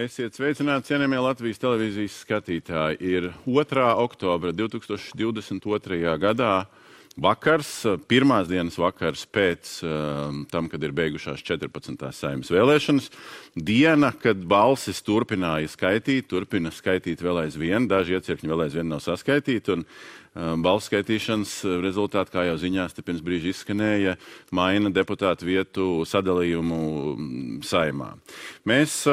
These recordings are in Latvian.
Esiet sveicināti, cienījamie Latvijas televīzijas skatītāji. Ir 2. oktobra 2022. gadā vakars, pirmās dienas vakars pēc tam, kad ir beigušās 14. Saeimas vēlēšanas. Diena, kad balsis turpina skaitīt vēl aizvien, daži iecirkņi vēl aizvien nav saskaitīti, un balsu skaitīšanas rezultāti, kā jau ziņās te pirms brīža izskanēja, maina deputātu vietu sadalījumu Saeimā. Mēs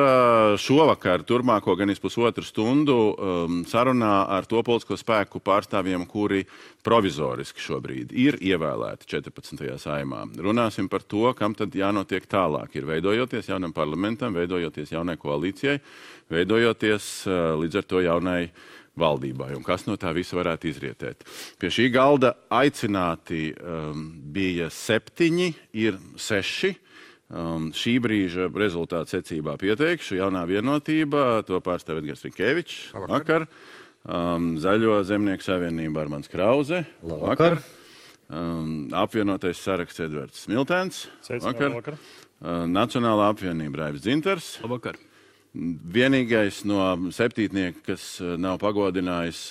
šovakar turpmāko gan pusotru stundu sarunā ar to politisko spēku pārstāvjiem, kuri provizoriski šobrīd ir ievēlēti 14. Saeimā. Runāsim par to, kam tad jānotiek tālāk. Ir veidojoties jaunam parlamentam, veidojoties jaunai koalīcijai, veidojoties līdz ar to jaunai valdībai, un kas no tā visa varētu izrietēt. Pie šī galda aicināti bija 7, ir 6. Šī brīža rezultātu secībā pieteikšu. Jaunā vienotība, to pārstāv Edgars Rinkēvičs. Vakar. Zaļo zemnieku savienība Armands Krauze. Vakar. Apvienotais saraksts Edvards Smiltēns. Vakar. Nacionālā apvienība Raivis Dzintars. Vakar. Vienīgais no septītnieka, kas nav pagodinājis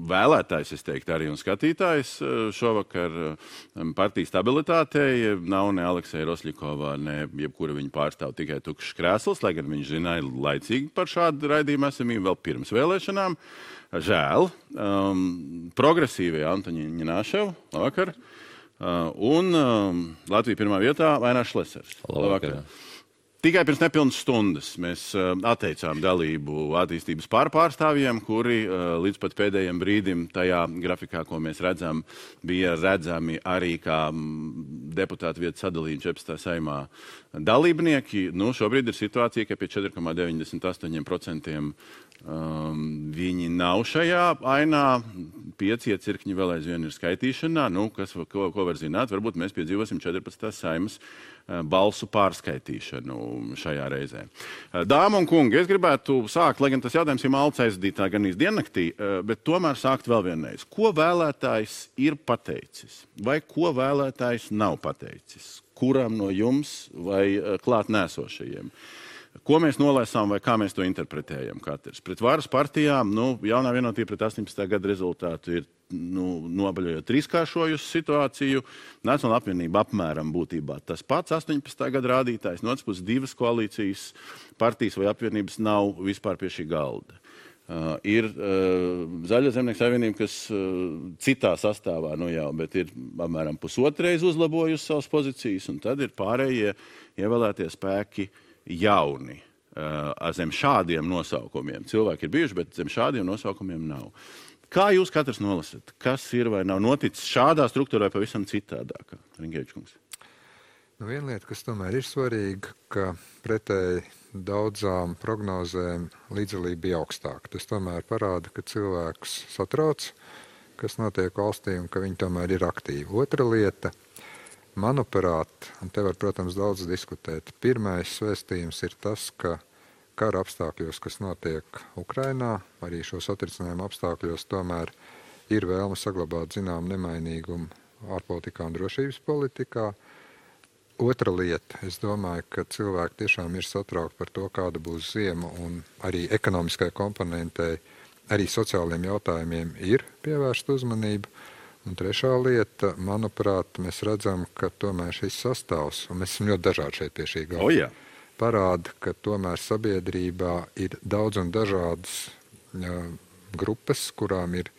vēlētājs, es teiktu, arī un skatītājs šovakar partijas stabilitātei, nav ne Aleksēja Rosļikovā, ne jebkura viņa pārstāv, tikai tukšs krēsls, lai gan viņš zināja laicīgi par šādu raidījumu esamību vēl pirms vēlēšanām. Žēl. Progresīvie Antoņi Ņināšev, labvakar. Un Latvija pirmā vietā Vainārs Šlesers. Labvakar. Tikai pirms nepilnas stundas mēs atteicām dalību attīstības pārstāvjiem, kuri līdz pat pēdējiem brīdim tajā grafikā, ko mēs redzam, bija redzami arī kā deputātu vietu sadalījumi 14. Saeimā dalībnieki. Nu, šobrīd ir situācija, ka pie 4,98% viņi nav šajā ainā. 5 iecirkņi vēl aizvien ir skaitīšanā. Nu, ko var zināt? Varbūt mēs piedzīvosim 14. Saeimas balsu pārskaitīšanu šajā reizē. Dāma un kungi, es gribētu sākt, lai gan tas jautājums ir malts aizdītā gan diennaktī, bet tomēr sākt vēl vienreiz. Ko vēlētājs ir pateicis? Vai ko vēlētājs nav pateicis? Kuram no jums vai klāt nēsošajiem? Ko mēs nolēsām vai kā mēs to interpretējam katrs? Pret varas partijām, jaunā vienotība pret 18. gada rezultātu ir nobaļojot trīskāršojusi situāciju. Nacionālā apvienība apmēram būtībā tas pats 18. gada rādītājs. No otras puses 2 koalīcijas partijas vai apvienības nav vispār pie šī galda. Ir Zaļo zemnieku savienība, kas citā sastāvā jau, bet ir apmēram pusotreiz uzlabojusi savas pozīcijas, un tad ir pārējie ievēlētie spēki jauni. Zem šādiem nosaukumiem. Cilvēki ir bijuši, bet zem šādiem nosaukumiem nav. Kā jūs katrs nolasat? Kas ir vai nav noticis šādā struktūrā pavisam citādākā? Rinkēvičs kungs. Viena lieta, kas tomēr ir svarīga, ka pretēji daudzām prognozēm līdzdalība bija augstāka. Tas tomēr parāda, ka cilvēkus satrauc, kas notiek valstī un ka viņi tomēr ir aktīvi. Otra lieta, manuprāt, un te var, protams, daudz diskutēt, pirmais vēstījums ir tas, ka kara apstākļos, kas notiek Ukrainā, arī šo satricinājumu apstākļos tomēr ir vēlme saglabāt zinām nemainīgumu ārpolitikā un drošības politikā. Otra lieta, es domāju, ka cilvēki tiešām ir satraukti par to, kāda būs ziema, un arī ekonomiskai komponentei, arī sociāliem jautājumiem ir pievērsta uzmanība. Un trešā lieta, manuprāt, mēs redzam, ka tomēr šis sastāvs, un mēs esam ļoti dažādi šeit pie šī galda, parāda, ka tomēr sabiedrībā ir daudz un dažādas grupas, kurām ir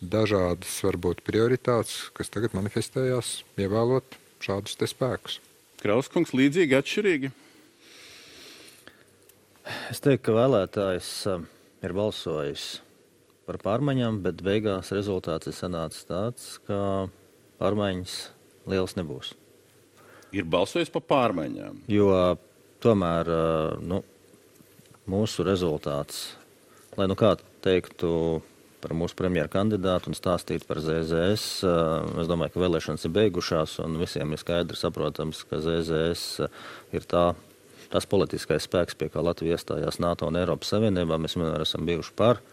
dažādas, varbūt, prioritātes, kas tagad manifestējās, ievēlot šādus te spēkus. Krauskungs, līdzīgi, atšķirīgi? Es teiktu, ka vēlētājs ir balsojis par pārmaiņām, bet beigās rezultāts ir sanācis tāds, ka pārmaiņas liels nebūs. Ir balsojis par pārmaiņām? Jo tomēr mūsu rezultāts, lai kā teiktu par mūsu premjeru kandidātu un stāstītu par ZZS, es domāju, ka vēlēšanas ir beigušās un visiem ir skaidri saprotams, ka ZZS ir tās politiskais spēks, pie kā Latvija iestājās NATO un Eiropas Savienībā. Mēs vienmēr esam bijuši par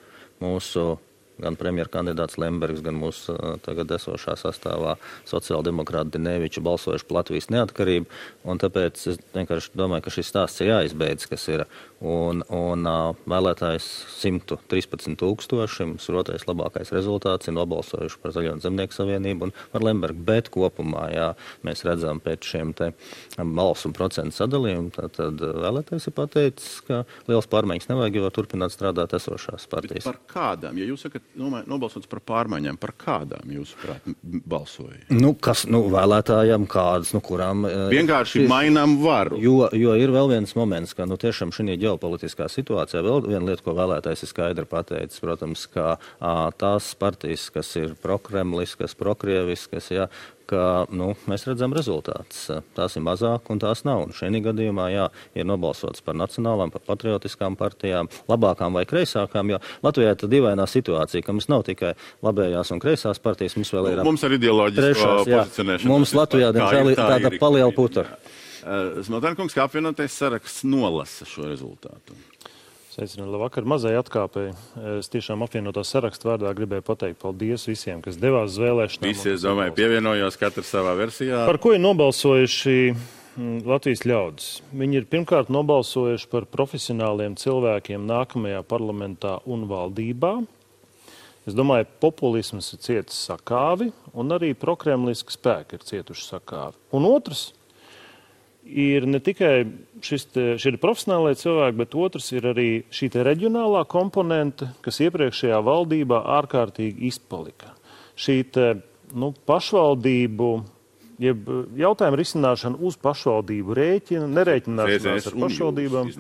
mūsu gan premjerkandidāts Lembergs, gan mūsu tagad esošā sastāvā sociāldemokrāti Dineviča balsojuši par Latvijas neatkarību, un tāpēc es vienkārši domāju, ka šis stāsts ir jāizbeidz, kas ir, un vēlētājs 113 000, mums ir otrais labākais rezultāts, ir nobalsojuši par Zaļo un Zemnieku savienību un par Lembergu, bet kopumā, jā, mēs redzam pēc šiem te balsu un procentu sadalījumu, tad vēlētājs ir pateicis, ka liels pārmaiņas nevajag, jo turpināt strādāt esošās partijas. Par kādām? Ja jūs sakat, nobalsots par pārmaiņām, par kādām jūs balsojat? Vēlētājiem kādas, kurām... Vienkārši mainām varu. Jo ir vēl viens moments, ka tiešām šī ģeopolitiskā situācijā vēl viena lieta, ko vēlētājs ir skaidri pateicis, protams, ka tās partijas, kas ir prokremliskas, prokrieviskas, jā, ka mēs redzam rezultātus. Tās ir mazāk un tās nav. Un šajā gadījumā ir nobalsots par nacionālām, par patriotiskām partijām, labākām vai kreisākām, jo Latvijā ir dīvainā situācija, ka mums nav tikai labējās un kreisās partijas, mums vēl ir... Mums ar ideoloģisko pozicionēšanu. Mums Latvijā, diemžēl, ir tāda paliela putra. Smiltēnkungs, kā apvienotais saraksts nolasa šo rezultātu? Sveicināti, labvakar, mazai atkāpēji. Es tiešām apvienotā sarakstu vārdā gribēju pateikt paldies visiem, kas devās uz vēlēšanām. Visi, es domāju, pievienojos katrs savā versijā. Par ko ir nobalsojuši Latvijas ļaudis? Viņi ir pirmkārt nobalsojuši par profesionāliem cilvēkiem nākamajā parlamentā un valdībā. Es domāju, populisms ir cietis sakāvi un arī prokremliski spēki ir cietuši sakāvi. Un otrs ir ne tikai šie profesionālie cilvēki, bet otrs ir arī šī reģionālā komponente, kas iepriekšējā valdībā ārkārtīgi izpalika. Šī pašvaldību, jeb jautājumu risināšana uz pašvaldību rēķina, nerēķināšanās ar pašvaldībām.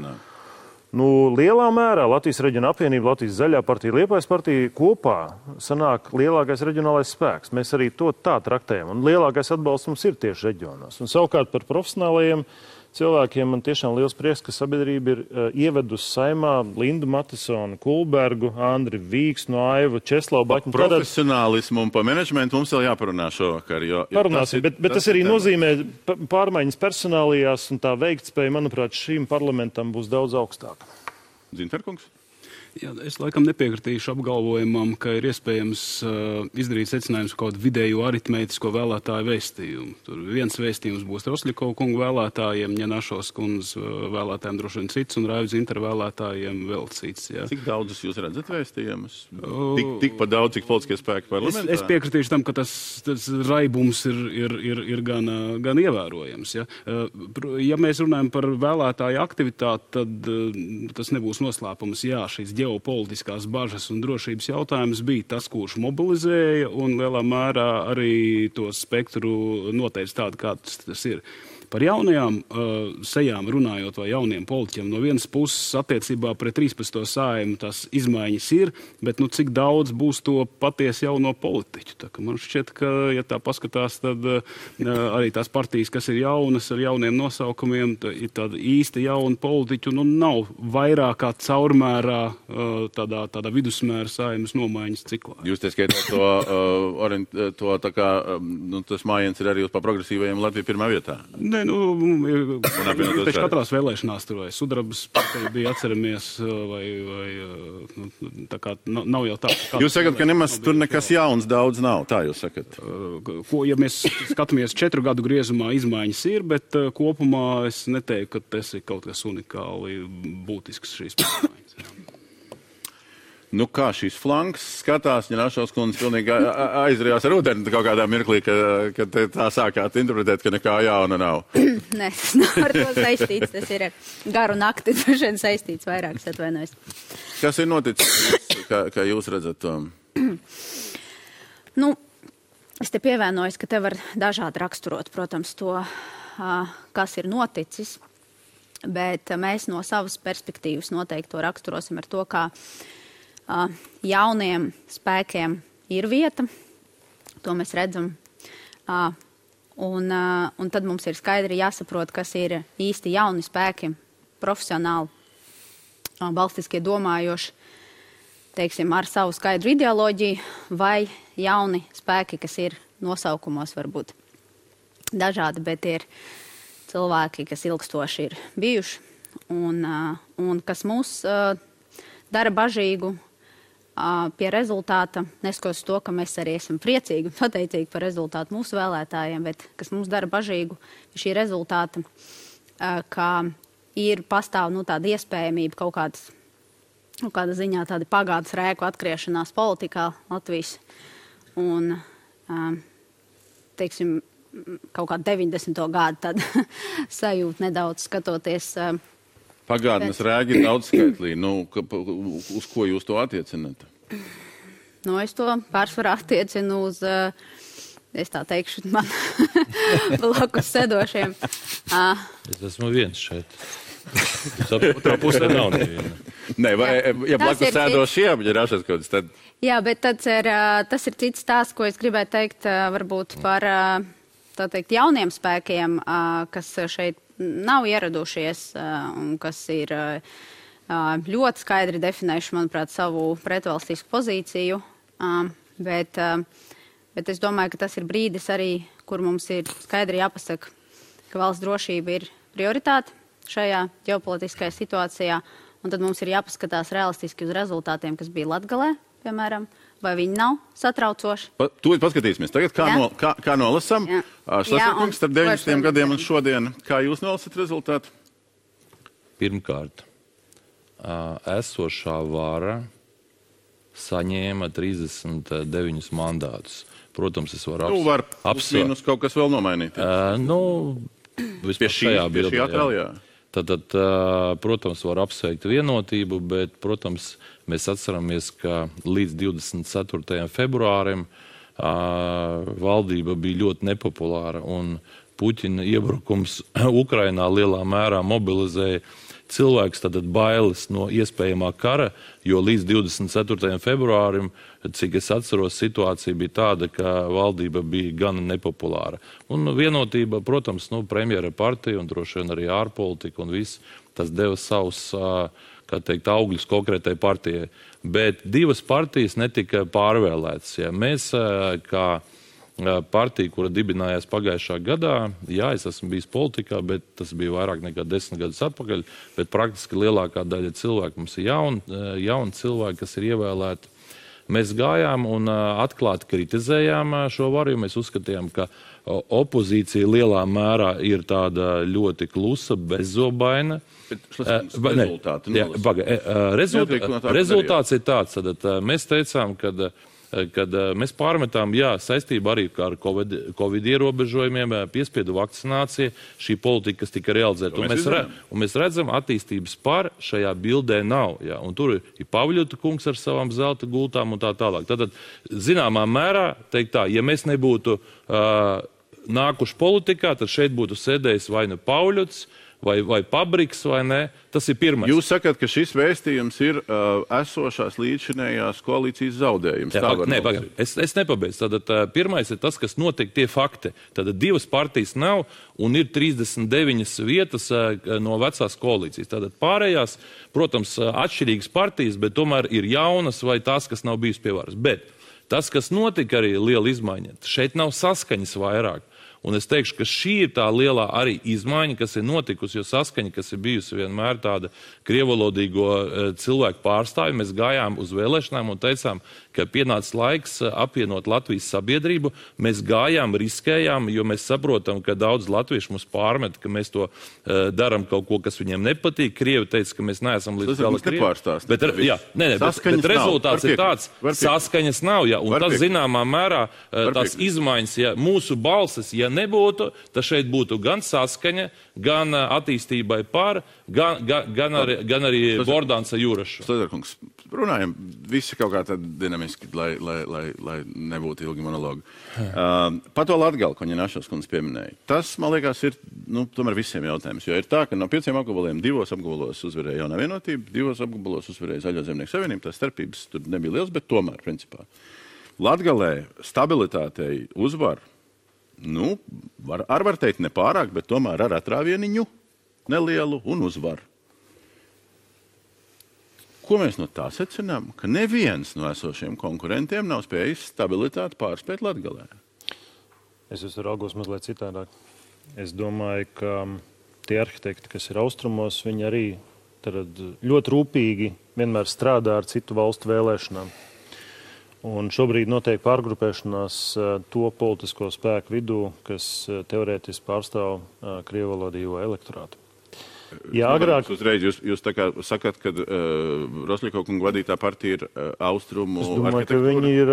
Lielā mērā Latvijas reģiona apvienība, Latvijas zaļā partija, Liepājas partija kopā sanāk lielākais reģionālais spēks. Mēs arī to tā traktējam, un lielākais atbalsts mums ir tieši reģionos. Un savukārt par profesionālajiem cilvēkiem man tiešām liels prieks, ka sabiedrība ir ievedusi Saimā Lindu Matisonu, Kulbergu, Andri Vīksnu, Aivu, Česlavu Baķinu. Par profesionālismu un par menedžmentu mums vēl jāparunā šovakar. Parunāsim, bet tas arī nozīmē pārmaiņas personālijās, un tā veiktspēja, manuprāt, šīm parlamentam būs daudz augstāka. Zinterkungs? Jā, es laikam nepiekritīšu apgalvojumam, ka ir iespējams izdarīt secinājums kaut kādu vidēju aritmētisko vēlētāju vēstījumu. Tur viens vēstījums būs Rosļikova kungu vēlētājiem, Ņenašos kundzes vēlētājiem droši vien cits un Raivu Zinteru vēlētājiem vēl cits. Jā. Cik daudzus jūs redzat vēstījumus? Tikpat daudz, cik politiskie spēki parlamentā? Es piekritīšu tam, ka tas raibums ir gan ievērojams. Ja? Ja mēs runājam par vēlētāju aktivitāti, tad tas nebūs noslēpums. Jā, šīs ģeopolitiskās bažas un drošības jautājums bija tas, kurš mobilizēja un lielā mērā arī to spektru noteica tādu, kāds tas ir. Par jaunajām sejām runājot vai jauniem politiķiem, no vienas puses attiecībā pret 13. Saeimu tās izmaiņas ir, bet cik daudz būs to patiesi jauno politiķu. Tā, man šķiet, ka, ja tā paskatās, tad arī tās partijas, kas ir jaunas ar jauniem nosaukumiem, ir tāda īsti jauna politiķu, nav vairāk kā caurmērā tādā vidusmēra Saeimas nomaiņas ciklā. Jūs te skaitāt to tā kā, tas mājiens ir arī uz par progresīvajiem Latviju pirmā vietā. Pēc katrās vēlēšanās tur vai Sudrabas partija bija, atceramies, vai tā kā nav jau tā. Jūs sakat, ka nemaz tur nekas jauns daudz nav, tā jūs sakat? Ja mēs skatāmies 4 gadu griezumā, izmaiņas ir, bet kopumā es neteiktu, ka tas ir kaut kas unikāli būtisks šīs pārmaiņas. Kā šīs flanks skatās, Ņenašos kundze pilnīgi aizrījās ar ūdeni kaut kādā mirklī, kad tā sākāt interpretēt, ka nekā jauna nav. Nē, tas nav ar to saistīts, tas ir ar garu nakti, droši saistīts vairāk, es atvainojos. Kas ir noticis, kā jūs redzat to? Es te pievienojos, ka te var dažādi raksturot, protams, to, kas ir noticis, bet mēs no savas perspektīvas noteikti to raksturosim ar to, kā jauniem spēkiem ir vieta, to mēs redzam, un tad mums ir skaidri jāsaprot, kas ir īsti jauni spēki, profesionāli, valstiskie domājoši, teiksim, ar savu skaidru ideoloģiju, vai jauni spēki, kas ir nosaukumos varbūt dažādi, bet ir cilvēki, kas ilgstoši ir bijuši, un kas mūs dara bažīgu, pie rezultāta, neskatoties to, ka mēs arī esam priecīgi un pateicīgi par rezultātu mūsu vēlētājiem, bet kas mums dara bažīgu šī rezultāta, ka pastāv tāda iespējamība kaut kāda ziņā tāda pagātnes rēku atgriešanās politikā Latvijas un, teiksim, kaut kā 90. gadu tad sajūt nedaudz skatoties. Pagātnes rēgi ir daudzskaitlī. Uz ko jūs to attiecināt? Es to pārsvarā attiecinu uz, es tā teikšu, man blakus sedošiem. Es esmu viens šeit. Otrā pusē nav neviena. Nē, ja blakus sēdošiem, ja rašas kaut kas, tad... Jā, bet tas ir cits stāsts, ko es gribētu teikt varbūt par, tā teikt, jauniem spēkiem, kas šeit nav ieradušies un kas ir ļoti skaidri definējuši, manuprāt, savu pretvalstisku pozīciju. Bet es domāju, ka tas ir brīdis arī, kur mums ir skaidri jāpasaka, ka valsts drošība ir prioritāte šajā ģeopolitiskajā situācijā, un tad mums ir jāpaskatās realistiski uz rezultātiem, kas bija Latgalē, piemēram, vai viņi nav satraucoši. Tūlīt paskatīsimies. Tagad kā nolasam? Šlesnerkungs starp 90 gadiem un šodien. Kā jūs nolasat rezultātu? Pirmkārt, esošā vara saņēma 39 mandātus. Protams, es varu var apsvērst kaut kas vēl nomainīt. Vispār šajā bildē. Tad, protams, var apsveikt vienotību, bet, protams, mēs atceramies, ka līdz 24. februārim valdība bija ļoti nepopulāra un Puķina iebrukums Ukrainā lielā mērā mobilizēja cilvēks, tātad bailes no iespējamā kara, jo līdz 24. februārim, cik es atceros, situācija bija tāda, ka valdība bija gan nepopulāra. Un vienotība, protams, premjera partija un droši vien arī ārpolitika un viss, tas deva savus, kā teikt, augļus konkrētai partijai. Bet divas partijas netika pārvēlētas. Ja mēs, kā partija, kura dibinājās pagājušā gadā, es esmu bijis politikā, bet tas bija vairāk nekā 10 gadus atpakaļ, bet praktiski lielākā daļa cilvēku mums ir jauni cilvēki, kas ir ievēlēti. Mēs gājām un atklāti kritizējām šo varu, jo mēs uzskatījām, ka opozīcija lielā mērā ir tāda ļoti klusa, bezzobaina. Rezultāts ir tāds, tad mēs teicām, kad mēs pārmetām, saistībā arī ar Covid ierobežojumiem, piespiedu vakcinācija, šī politika, kas tika realizēta. Un mēs redzam, attīstības par šajā bildē nav. Un tur ir Pavļuta kungs ar savām zelta gultām un tā tālāk. Tātad, zināmā mērā, teikt tā, ja mēs nebūtu nākuši politikā, tad šeit būtu sēdējis vai nu Pavļuts, vai Pabriks, vai ne? Tas ir pirmais. Jūs sakat, ka šis vēstījums ir esošās līdzšinējās koalīcijas zaudējums. Es nepabeidzu. Tātad pirmais ir tas, kas notiek tie fakti. Tātad divas partijas nav un ir 39 vietas no vecās koalīcijas. Tātad pārējās, protams, atšķirīgas partijas, bet tomēr ir jaunas vai tās, kas nav bijis pie varas. Bet tas, kas notika arī liela izmaiņa, šeit nav saskaņas vairāk. Un es teikšu, ka šī ir tā lielā arī izmaiņa, kas ir notikusi, jo saskaņa, kas ir bijusi vienmēr tāda krievalodīgo cilvēku pārstāvju, mēs gājām uz vēlēšanām un teicām, ka pienācis laiks apvienot Latvijas sabiedrību. Mēs gājām, riskējām, jo mēs saprotam, ka daudz latviešu mums pārmet, ka mēs to daram kaut ko, kas viņiem nepatīk. Krievi teica, ka mēs neesam līdz gala krievi. Bet rezultāts ir tāds, saskaņas nav, un tas zināmā mērā tās izmaiņas, ja mūsu balsis, ja nebūtu, tad šeit būtu gan saskaņa, gan attīstībai par, gan arī Bordāns ar Jūrašu. Šlesnerkungs, runājam visi kaut kā tad dinamiski, lai nebūtu ilgi monologi. Par to Latgali, ko Ņinašos kundze pieminēja. Tas, man liekas, ir tomēr visiem jautājums, jo ir tā, ka no 5 apgabaliem 2 apgabalos uzvarēja Jaunā vienotība, 2 apgabalos uzvarēja Zaļo zemnieku savienība, tās starpības tur nebija liels, bet tomēr, principā. Latgalē stabilitātei uzvar, var teikt nepārāk, bet tomēr ar atrāvieniņu nelielu un uzvaru. Ko mēs no tā secinām? Ka neviens no esošiem konkurentiem nav spējis stabilitāti pārspēt Latgalē. Es raugos mazliet citādāk. Es domāju, ka tie arhitekti, kas ir austrumos, viņi arī tad ļoti rūpīgi vienmēr strādā ar citu valstu vēlēšanām. Un šobrīd notiek pārgrupēšanās to politisko spēku vidū, kas teorētiski pārstāv krievalodīgo elektorātu. Jā, agrāk... Uzreiz jūs tā kā sakat, ka Rosļiko kunga vadītā partija ir austrumu arhitektūra? Es domāju, ka viņi ir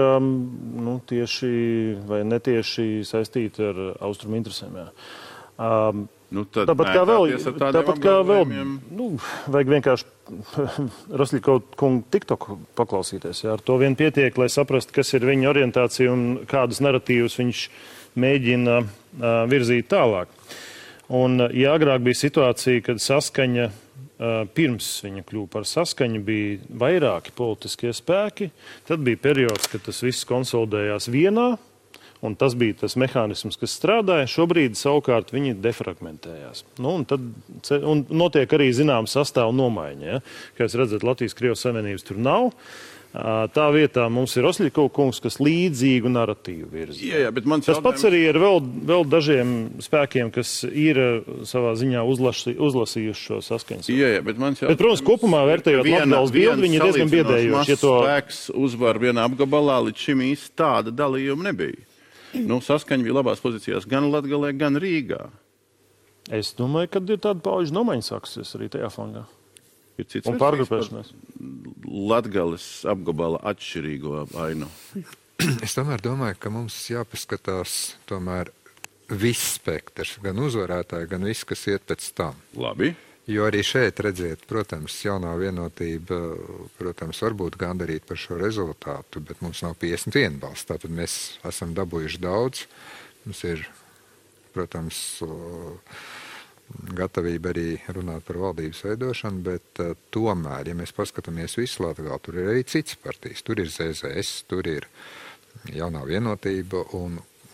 tieši vai netieši saistīti ar austrumu interesēm, jā. Tāpat kā vēl vajag vienkārši Rosļiko kungu TikToku paklausīties. Jā. Ar to vien pietiek, lai saprastu, kas ir viņa orientācija un kādus narratīvus viņš mēģina virzīt tālāk. Un, ja agrāk bija situācija, kad saskaņa, pirms viņa kļuva par saskaņu, bija vairāki politiskie spēki, tad bija periods, kad tas viss konsolidējās vienā, un tas bija tas mehānisms, kas strādāja. Šobrīd savukārt viņi defragmentējās. Un notiek arī zināms sastāvu nomaiņa. Ja? Kā jūs redzat, Latvijas-Krievijas Savienības tur nav. Tā vietā mums ir Rosļiko kungs, kas līdzīgu narratīvu virza. Jā, bet tas pats arī ir vēl dažiem spēkiem, kas ir savā ziņā uzlasījuši šo saskaņas. Jā, bet protams, kopumā vērtējot Latgales bildi, viņi ir diezgan biedējoši. Spēks uzvar vienā apgabalā, līdz šim īsti tāda dalījuma nebija. Saskaņa bija labās pozīcijās gan Latgalē, gan Rīgā. Es domāju, ka ir tāda pauģu nomaiņa sāksies arī tajā flangā. Ir cits un pārgrupēšanās. Latgales apgabala atšķirīgo ainu. Es tomēr domāju, ka mums jāpaskatās tomēr viss spektrs, gan uzvarētāji, gan viss, kas iet pēc tam. Labi. Jo arī šeit, redziet, protams, jaunā vienotība, protams, varbūt gandarīt par šo rezultātu, bet mums nav 51 balss. Tātad mēs esam dabūjuši daudz. Mums ir, protams, gatavība arī runāt par valdības veidošanu, bet tomēr, ja mēs paskatāmies visu Latgali, tur ir arī cits partijas. Tur ir ZZS, tur ir jaunā vienotība, un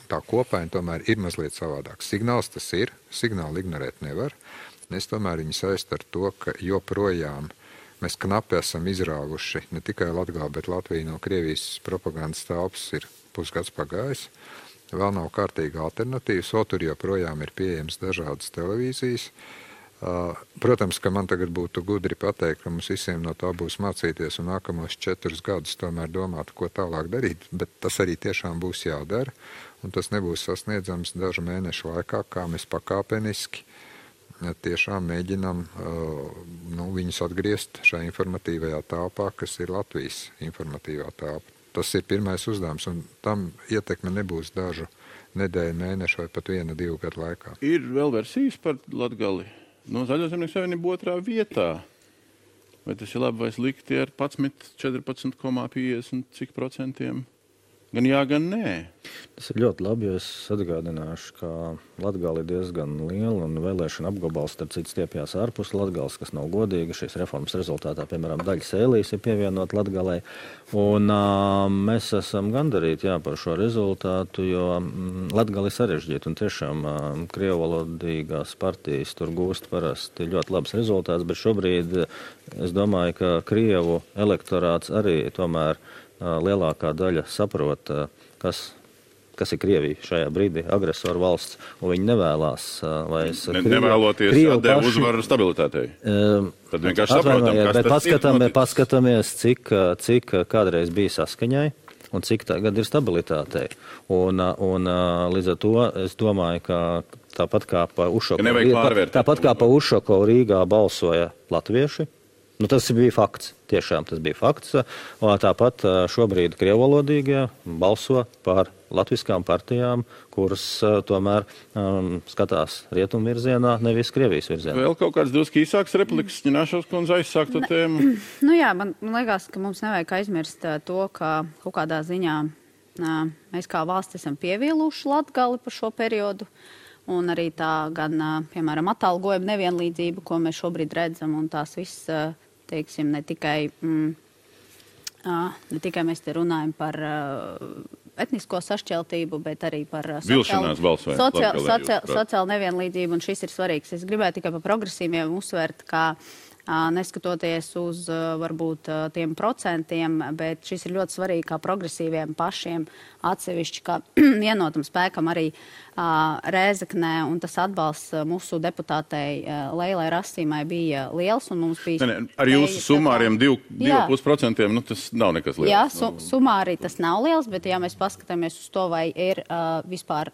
tā kopaina tomēr ir mazliet savādāk. Signāls tas ir, signālu ignorēt nevar. Es tomēr viņu saist ar to, ka joprojām mēs knapi esam izrāvuši ne tikai Latgali, bet Latviju no Krievijas propagandas telpas ir pusgads pagājis. Vēl nav kārtīga alternatīvas, tur joprojām ir pieejams dažādas televīzijas. Protams, ka man tagad būtu gudri pateikt, ka mums visiem no tā būs mācīties un nākamos 4 gadus tomēr domāt, ko tālāk darīt, bet tas arī tiešām būs jādara, un tas nebūs sasniedzams dažu mēnešu laikā, kā mēs pakāpeniski tiešām mēģinām viņus atgriezt šajā informatīvajā telpā, kas ir Latvijas informatīvā telpa. Tas ir pirmais uzdevums, un tam ietekme nebūs dažu nedēļu, mēnešu vai pat 1-2 gadu laikā. Ir vēl versijas par Latgali. Zaļo zemnieku savienība 2. vietā. Vai tas ir labi vai slikti ar 14,50 cik procentiem? Gan jā, gan nē. Tas ir ļoti labi, jo es atgādināšu, ka Latgali ir diezgan liela un vēlēšana apgabals, starp citu stiepjās ārpus Latgales, kas nav godīga. Šīs reformas rezultātā, piemēram, daļa sēlīs ir pievienot Latgalei. Un mēs esam gandarīti par šo rezultātu, jo Latgali ir sarežģīta un tiešām krievalodīgās partijas tur gūst parasti ļoti labs rezultāts, bet šobrīd es domāju, ka krievu elektorāts arī tomēr lielākā daļa saprot, kas ir Krievija šajā brīdī, agresoru valsts, un viņi nevēlās vairs... Nevēloties atdevu uzvaru stabilitātei. Tad vienkārši saprotam, kas tas ir. Paskatāmies, cik kādreiz bija saskaņai, un cik tagad ir stabilitātei. Un līdz ar to es domāju, ka tāpat kā pa Ušakovu Rīgā balsoja latvieši, tas bija fakts. Tiešām tas bija fakts. Tāpat šobrīd krievalodīgie balso par latviskām partijām, kuras tomēr skatās rietumu virzienā, nevis Krievijas virzienā. Vēl kaut kāds drusku īsāks repliks, Ņināšovs kundze aizsākto tēmu? Man liekas, ka mums nevajag aizmirst to, ka kaut kādā ziņā mēs kā valsts esam pievīluši Latgali par šo periodu. Un arī tā gan, piemēram, atalgojuma nevienlīdzība, ko mēs šobrīd redzam, un tās viss, teiksim, ne tikai mēs te runājam par etnisko sašķeltību, bet arī par sociālu nevienlīdzību, un šis ir svarīgs. Es gribēju tikai par progresīviem uzsvērt, ka neskatoties uz varbūt tiem procentiem, bet šis ir ļoti svarīgi kā progresīviem pašiem atsevišķi, kā vienotam spēkam arī Rēzeknē, un tas atbalsts mūsu deputātei Leilai Rasīmai bija liels, un mums bija... Ar jūsu sumāriem 2,5%, tas nav nekas liels. Jā, sumāri tas nav liels, bet ja mēs paskatāmies uz to, vai ir vispār...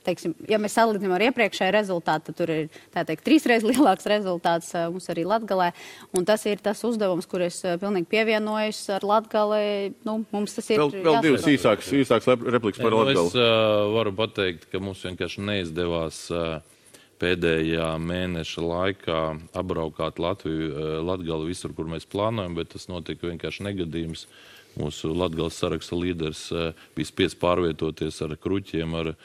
Teiksim, ja mēs salīdzinām ar iepriekšēju rezultātu, tad tur ir, tā teikt, 3 reizes lielāks rezultāts mums arī Latgalē. Un tas ir tas uzdevums, kur es pilnīgi pievienojos ar Latgali. Mums tas ir vēl divas īsākas replikas par Latgali. Es varu pateikt, ka mums vienkārši neizdevās pēdējā mēneša laikā apbraukāt Latgali visur, kur mēs plānojam, bet tas notika vienkārši negadījums. Mūsu Latgales saraksta līderis bija spiests pārvietoties ar kruķiem, ar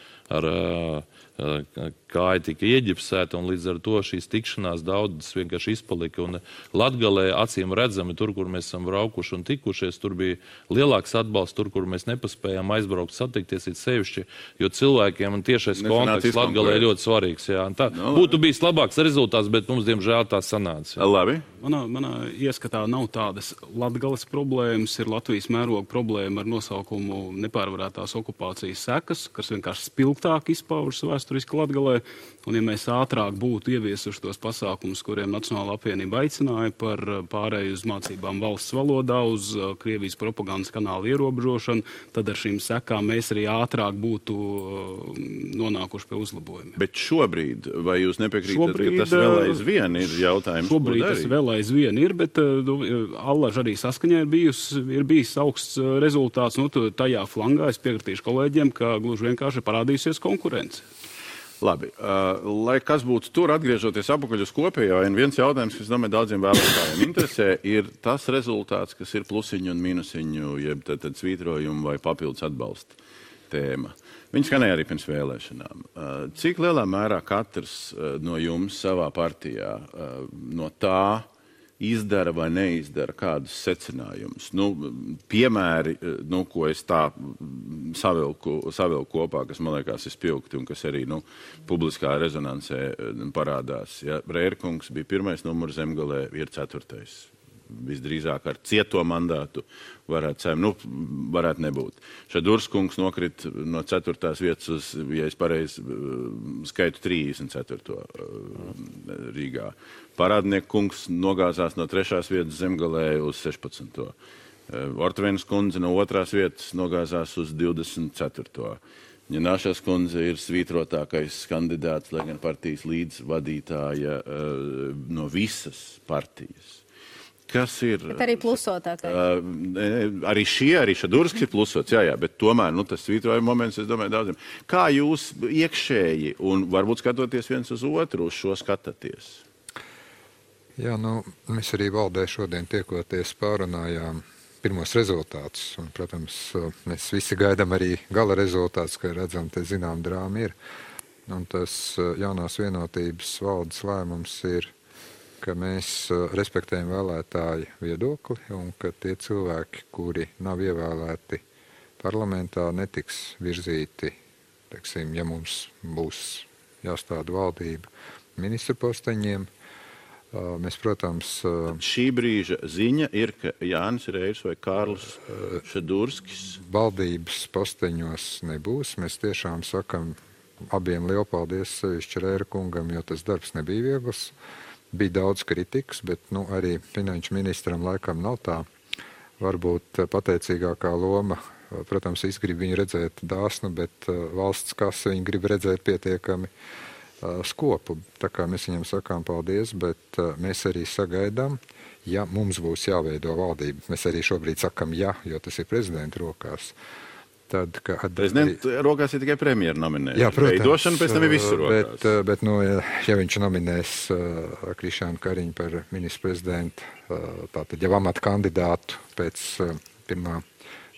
kāja tika ieģipsēta, un līdz ar to šīs tikšanās daudzas vienkārši izpalika. Un Latgalē acīm redzami, tur, kur mēs esam braukuši un tikušies, tur bija lielāks atbalsts, tur, kur mēs nepaspējām aizbraukt, satikties it sevišķi, jo cilvēkiem un tiešais kontakts Latgalē ir ļoti svarīgs. Jā. Tā būtu bijis labāks rezultāts, bet mums, diemžēl, tā sanāca. Jā. Labi. Manā ieskatā nav tādas Latgales problēmas, ir Latvijas mēroga problēma ar nosaukumu nepārvarētās okupācijas sekas, kas vienkārši spilgtāk izpaužas vēsturiski Latgalē. Un ja mēs ātrāk būtu ieviesuši tos pasākumus, kuriem Nacionālā apvienība aicināja par pārēju uz mācībām valsts valodā, uz Krievijas propagandas kanāla ierobežošanu, tad ar šīm sekām mēs arī ātrāk būtu nonākuši pie uzlabojumiem. Bet šobrīd, vai jūs nepiekrītat, ka tas vēl aizvien ir jautājums? Šobrīd tas vēl aizvien ir, bet allaž arī saskaņā ir bijis augsts rezultāts. Tajā flangā es piekritīšu kolēģiem, ka gluži vienkārši parādīsies konkurence. Labi, lai kas būtu tur, atgriežoties apakaļ uz kopējo, viens jautājums, kas, domāju, daudziem vēlētājiem interesē, ir tas rezultāts, kas ir plusiņu un minusiņu, jeb tad svītrojumu vai papildus atbalsta tēma. Viņi skanēja arī pirms vēlēšanām. Cik lielā mērā katrs no jums savā partijā no tā izdara vai neizdara kādus secinājumus? Piemēri, ko es tā savilku kopā, kas man liekas ir spilgti un kas arī publiskā rezonansē parādās. Ja, Rērkungs bija 1. numurs Zemgalē, ir 4. Visdrīzāk ar cieto mandātu varētu nebūt. Šadurskungs nokrit no 4. vietas uz, ja es pareizi skaitu, 34. Rīgā. Parādnieku kungs nogāzās no 3. vietas Zemgalē uz 16. Ortvenas kundze no 2. vietas nogāzās uz 24. Ņināšas kundze ir svītrotākais kandidāts, lai gan partijas līdzvadītāja no visas partijas. Kas ir... Bet arī plusotākais. Arī Šadurskis ir plusots, jā, bet tomēr, tas svītrojuma moments, es domāju, daudziem. Kā jūs iekšēji un varbūt skatoties viens uz otru, uz šo skatāties? Jā, mēs arī valdē šodien tiekoties pārunājām pirmos rezultātus. Un, protams, mēs visi gaidām arī gala rezultātus, ka redzam, te zinām drāma ir. Un tas jaunās vienotības valdes lēmums ir, ka mēs respektējam vēlētāju viedokli un ka tie cilvēki, kuri nav ievēlēti parlamentā, netiks virzīti, teiksim, ja mums būs jāstāda valdība ministru posteņiem. Mēs, protams... Šī brīža ziņa ir, ka Jānis Reirs vai Kārlis Šadurskis... Valdības posteņos nebūs. Mēs tiešām sakam abiem lielu paldies sevišķi Reira kungam, jo tas darbs nebija viegls. Bija daudz kritikas, bet arī finanšu ministram laikam nav tā varbūt pateicīgākā loma. Protams, es gribu viņu redzēt dāsnu, bet valsts kasa viņu grib redzēt pietiekami skopu. Tā kā mēs viņam sakām paldies, bet mēs arī sagaidām, ja mums būs jāveido valdība. Mēs arī šobrīd sakam jā, jo tas ir prezidenta rokās. Prezidenta rokās ir tikai premjera nominēšana. Jā, protams. Veidošana pēc tam ir visu rokās. Bet ja viņš nominēs Krišānu Kariņu par ministru prezidentu, tātad jau amata kandidātu pēc 1.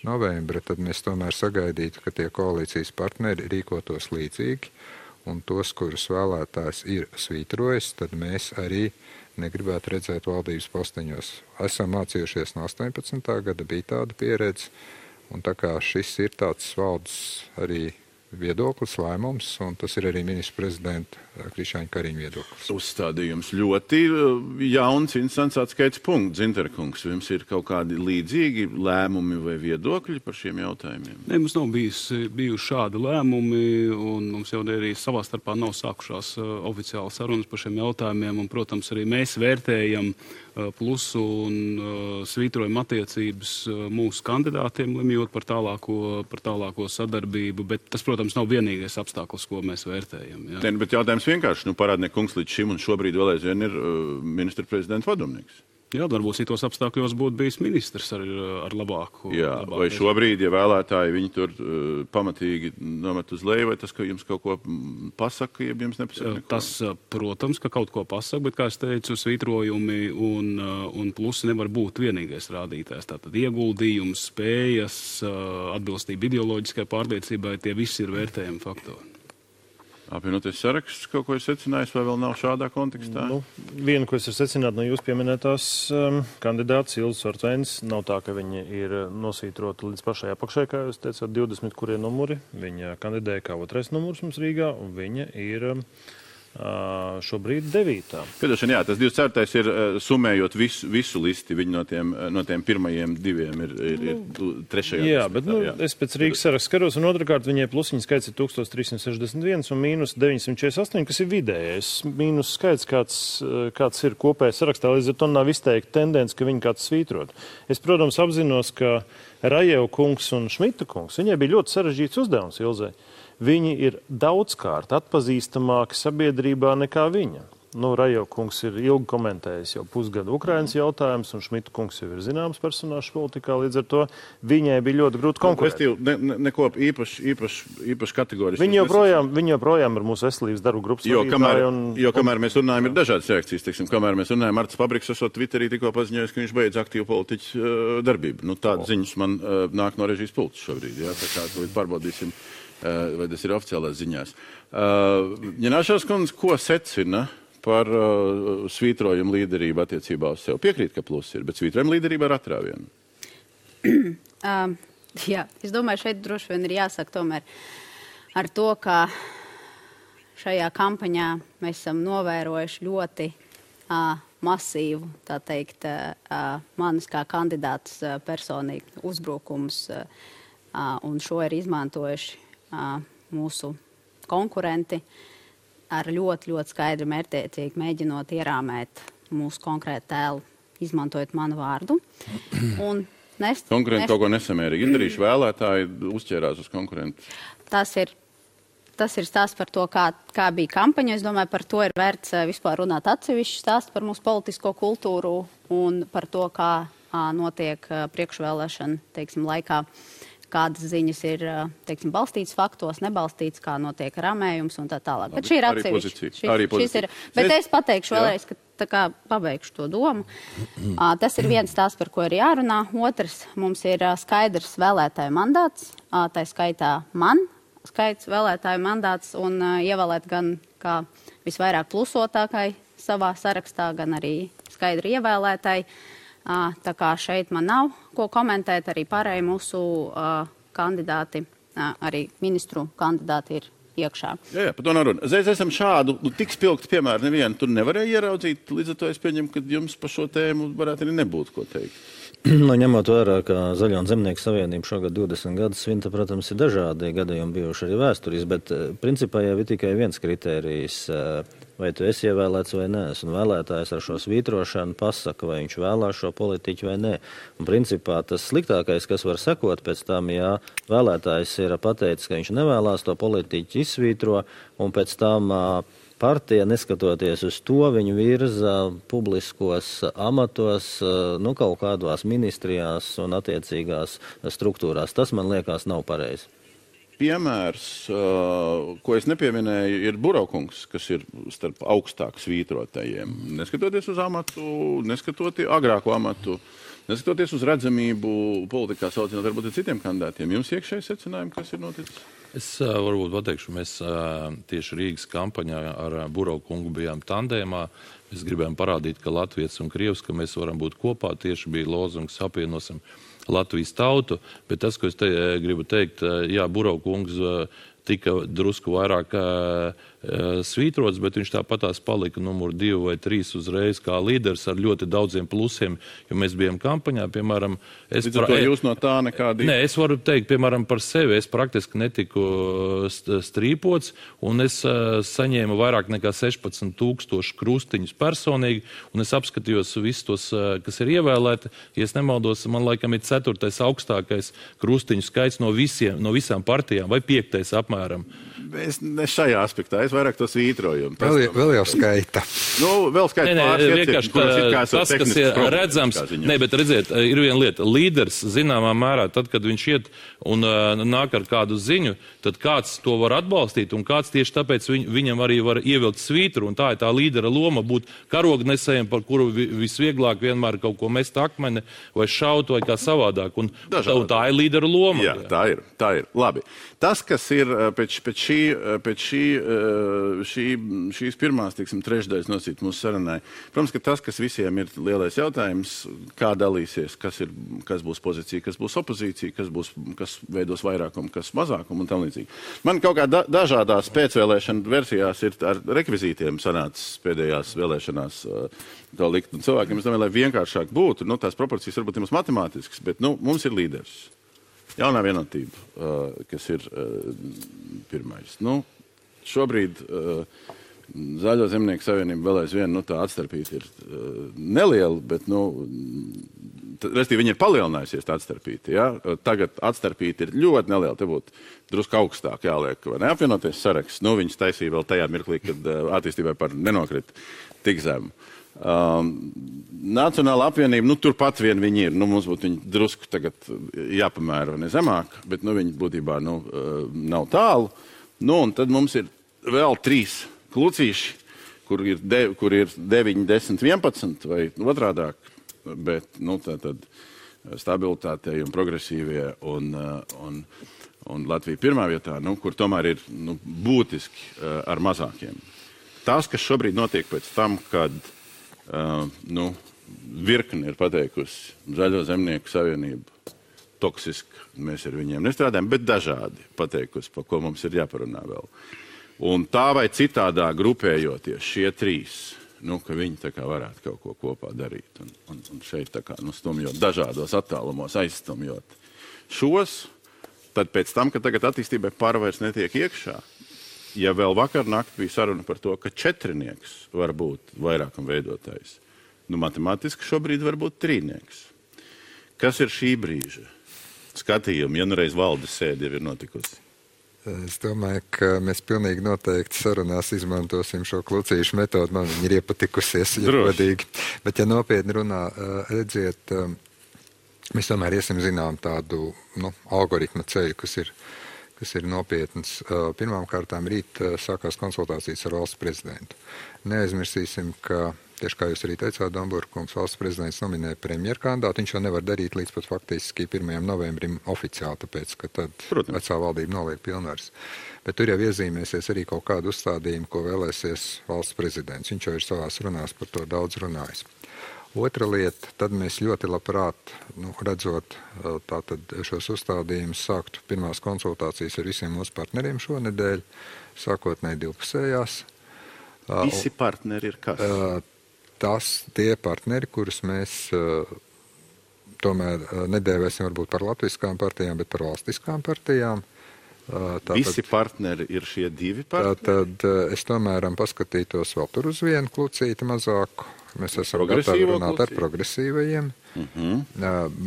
novembra, tad mēs tomēr sagaidītu, ka tie koalīcijas partneri rīkotos līdzīgi, un tos, kurus vēlētājs ir svītrojis, tad mēs arī negribētu redzēt valdības posteņos. Esam mācījušies no 18. gada, bija tāda pieredze. Un tā kā šis ir tāds valdes arī viedoklis, lēmums, un tas ir arī ministra prezidenta Krišjāņa Kariņa viedoklis. Uzstādījums ļoti jauns, interesants atskaits punkts. Zinterkungs, jums ir kaut kādi līdzīgi lēmumi vai viedokļi par šiem jautājumiem? Ne, mums nav bijuši šādi lēmumi, un mums jau arī savā starpā nav sākušās oficiāli sarunas par šiem jautājumiem, un, protams, arī mēs vērtējam plusu un svītrojam attiecības mūsu kandidātiem, lemjot par tālāko sadarbību, bet tas, protams, nav vienīgais apstākļus, ko mēs vērtējam. Jā. Ne, bet jautājums vienkārši, Parādnieka kungs līdz šim un šobrīd vēl aizvien ir ministra prezidenta padomnieks. Jā, varbūt citos apstākļos būtu bijis ministrs ar labāku. Jā, vai šobrīd, ja vēlētāji viņi tur pamatīgi nomet uz leju, vai tas, ka jums kaut ko pasaka, ja jums nepasaka neko? Tas, protams, ka kaut ko pasaka, bet, kā es teicu, svītrojumi un plusi nevar būt vienīgais rādītājs. Tātad ieguldījums, spējas, atbilstība ideoloģiskai pārliecībai, tie visi ir vērtējami faktori. Apvienoties saraksts kaut ko ir secinājis, vai vēl nav šādā kontekstā? Vienu, ko es varu secināt no jūs pieminētās kandidātas Ilzas Ortvēnas, nav tā, ka viņa ir nosvītrota līdz pašai apakšai, kā jūs teicāt, 20 kurie numuri. Viņa kandidēja kā otrais numurs mums Rīgā, un viņa ir šobrīd 9. Piedošana, jā, tas 24. ir summējot visu listi, viņi no tiem pirmajiem 2 ir 3. Jā, bet es pēc Rīgas saraksta skaros, un otrkārt viņai plusiņa skaits ir 1361 un mīnus 948, kas ir vidējais. Mīnus skaits, kāds ir kopējais sarakstā, līdz ar to nav izteikti tendence, ka viņi kāds svītrot. Es, protams, apzinos, ka Rajeva kungs un Šmita kungs, viņai bija ļoti sarežģīts uzdevums Ilzai. Viņi ir daudzkārt atpazīstamāki sabiedrībā nekā viņa. Rajeva kungs ir ilgi komentējis jau pusgadu Ukrainas jautājums, un Šmita kungs jau ir zināms personāžs politikā, līdz ar to viņai bija ļoti grūti konkurēt. Neko īpaši kategoriski. Viņi joprojām ir mūsu veselības darbu grupas vadītāji. Jo kamēr mēs runājam, ir dažādas reakcijas. Teiksim, kamēr mēs runājam, Arts Pabriks esot Twitterī tikko paziņojis, ka viņš beidz aktīvu politiķu darbību. Tādas ziņas man nāk no režijas pults šobrīd. Jā, tā kā pārbaudīsim, vai tas ir oficiālās ziņās. Ņināšās kundze, ko secina par svītrojumu līderību attiecībā uz sevi? Piekrīt, ka plus ir, bet svītrojumu līderība ar atrāvienu. Jā, es domāju, šeit droši vien ir jāsaka tomēr ar to, ka šajā kampaņā mēs esam novērojuši ļoti masīvu, tā teikt, manis kā kandidāts personīgi uzbrukums, un šo ir izmantojuši mūsu konkurenti ar ļoti, ļoti skaidri mērķtiecīgi mēģinot ierāmēt mūsu konkrētu tēlu, izmantojot manu vārdu. Konkurenti kaut ko nesamērīgi izdarījuši, vēlētāji uzķērās uz konkurentu. Tas ir stāsts par to, kā bija kampaņa. Es domāju, par to ir vērts vispār runāt atsevišķi stāst par mūsu politisko kultūru un par to, kā notiek priekšvēlēšana, teiksim, laikā. Kādas ziņas ir, teiksim, balstītas faktos, nebalstītas, kā notiek ramējums un tā tālāk. Bet šī ir atsevišķi. Bet es pateikšu vēlreiz, ka tā kā pabeigšu to domu. Tas ir viens tās, par ko ir jārunā. Otrs, mums ir skaidrs vēlētāju mandāts, tā skaitā man skaits vēlētāju mandāts un ievēlēt gan kā visvairāk plusotākai savā sarakstā, gan arī skaidri ievēlētāji. Tā kā šeit man nav ko komentēt, arī pārējie mūsu kandidāti, arī ministru kandidāti ir iekšā. Jā, par to nav runa. Esam šādu, tik spilgtu piemēru nevienu tur nevarēja ieraudzīt, līdz ar to es pieņemu, ka jums par šo tēmu varētu arī nebūt ko teikt. Ņemot vērā, ka Zaļo un Zemnieku savienība šogad 20 gadus svinta, protams, ir dažādi gadījumi bijuši arī vēsturis, bet principā jau ir tikai viens kritērijs, vai tu esi ievēlēts vai nē. Un vēlētājs ar šo svītrošanu pasaka, vai viņš vēlās šo politiķu vai nē. Un principā tas sliktākais, kas var sekot pēc tam, ja vēlētājs ir pateicis, ka viņš nevēlās to politiķu izsvītro, un pēc tam partija, neskatoties uz to, viņu virza publiskos amatos, kaut kādās ministrijās un attiecīgās struktūrās. Tas, man liekas, nav pareizi. Piemērs, ko es nepieminēju, ir Buraukungs, kas ir starp augstāk svītrotajiem. Neskatoties uz amatu, agrāko amatu, neskatoties uz redzamību politikā saucinot varbūt ar citiem kandidātiem. Jums iekšēji secinājumi, kas ir noticis? Es varbūt pateikšu, mēs tieši Rīgas kampaņā ar Buraukungu bijām tandēmā. Mēs gribējām parādīt, ka Latvijas un Krievs, ka mēs varam būt kopā. Tieši bija lozungs apvienosim Latvijas tautu. Bet tas, ko es gribu teikt, jā, Buraukungs tika drusku vairāk svītrots, bet viņš tāpatās palika numur 2 vai 3 uzreiz kā līderis ar ļoti daudziem plusiem, jo mēs bijām kampaņā, piemēram... Jūs no tā nekādi... Nē, es varu teikt, piemēram, par sevi. Es praktiski netiku strīpots, un es saņēmu vairāk nekā 16,000 krustiņus personīgi, un es apskatījos visus tos, kas ir ievēlēti. Ja es nemaldos, man laikam ir 4. augstākais krustiņu skaits no visām partijām, vai 5. apmēram. Es ne šajā aspektā, es vairāk to svītrojumu. Vēl jau skaita. Vēl skaita pāris tas, kas ir redzams, bet redziet, ir viena lieta. Līderis zināmā mērā, tad, kad viņš iet un nāk ar kādu ziņu, tad kāds to var atbalstīt, un kāds tieši tāpēc viņam arī var ievilkt svītru, un tā ir tā līdera loma būt karognesējiem, par kuru visvieglāk vienmēr kaut ko mest akmeni, vai šaut, vai kā savādāk, un tā ir līdera loma. Jā, tā ir. Labi. Tas, kas ir pēc šīs pirmās, trešdaļas nosīt mūsu sarunai, protams, ka tas, kas visiem ir lielais jautājums, kā dalīsies, kas būs pozīcija, kas būs opozīcija, kas veidos vairākumu, kas mazākumu un tam līdzīgi. Man kaut kā dažādās pēcvēlēšana versijās ir ar rekvizītiem sanācis pēdējās vēlēšanās to likt. Un cilvēkiem, es domāju, lai vienkāršāk būtu, tās proporcijas varbūt ir mums matemātiskas, bet mums ir līderis. Jaunā vienotība, kas ir pirmais. Šobrīd Zaļo zemnieku savienība vēl aizvien, tā atstarpība ir neliela, bet, restīvi, viņa ir palielinājusies tā atstarpība. Ja? Tagad atstarpība ir ļoti neliela, te būtu drusku augstāk jāliek, vai neapvienoties saraksts. Viņas taisīja vēl tajā mirklī, kad attīstībai par nenokrita tik zemu. Nacionāla apvienība, turpat vien viņi ir. Mums būtu viņi drusku tagad jāpamēra vai ne zemāk, bet viņi būtībā nav tālu. Un tad mums ir vēl 3 klucīši, kur ir 9, 10, 11 vai otrādāk, bet tātad stabilitātei un progresīvie un Latvija pirmā vietā, kur tomēr ir būtiski ar mazākiem. Tas, kas šobrīd notiek pēc tam, kad virkni ir pateikusi Zaļo zemnieku savienību toksiski, mēs ar viņiem nestrādājam, bet dažādi pateikusi, par ko mums ir jāparunā vēl. Un tā vai citādā grupējoties šie 3, ka viņi tā kā varētu kaut ko kopā darīt un šeit tā kā stumjot dažādos attālumos, aizstumjot šos, tad pēc tam, ka tagad attīstībai pārvairs netiek iekšā, ja vēl vakar nakt bija saruna par to, ka 4 var būt vairākam veidotājs, matemātiski šobrīd var būt 3. Kas ir šī brīža skatījumi, ja reiz valdes sēde jau ir notikusi? Es domāju, ka mēs pilnīgi noteikti sarunās izmantosim šo klucīšu metodu. Man viņa ir iepatikusies, ja godīgi. Bet, ja nopietni runā, redziet, mēs tomēr iesim zinām tādu algoritma ceļu, kas ir nopietns. Pirmām kārtām rīt sākās konsultācijas ar valsts prezidentu. Neaizmirsīsim, ka, tieši kā jūs arī teicāt, Domburkungs, valsts prezidents nominēja premjerkandidātu. Viņš jau nevar darīt līdz pat faktiski 1. novembrim oficiāli, tāpēc, ka tad vecā valdība noliek pilnvaras. Bet tur jau iezīmēsies arī kaut kādu uzstādījumu, ko vēlēsies valsts prezidents. Viņš jau ir savās runās par to daudz runājis. Otra lieta, tad mēs ļoti labprāt, redzot tātad šos uzstādījumus, sāktu pirmās konsultācijas ar visiem mūsu partneriem šonedēļ, sākotnēji divpusējās. Visi partneri ir kas? Tie partneri, kurus mēs tomēr nedēvēsim varbūt par latviskām partijām, bet par valstiskām partijām. Visi partneri ir šie 2 partneri? Tad es tomēr paskatītos vēl tur uz vienu klucīti mazāku. Mēs esam gatavi runāt ar progresīvajiem.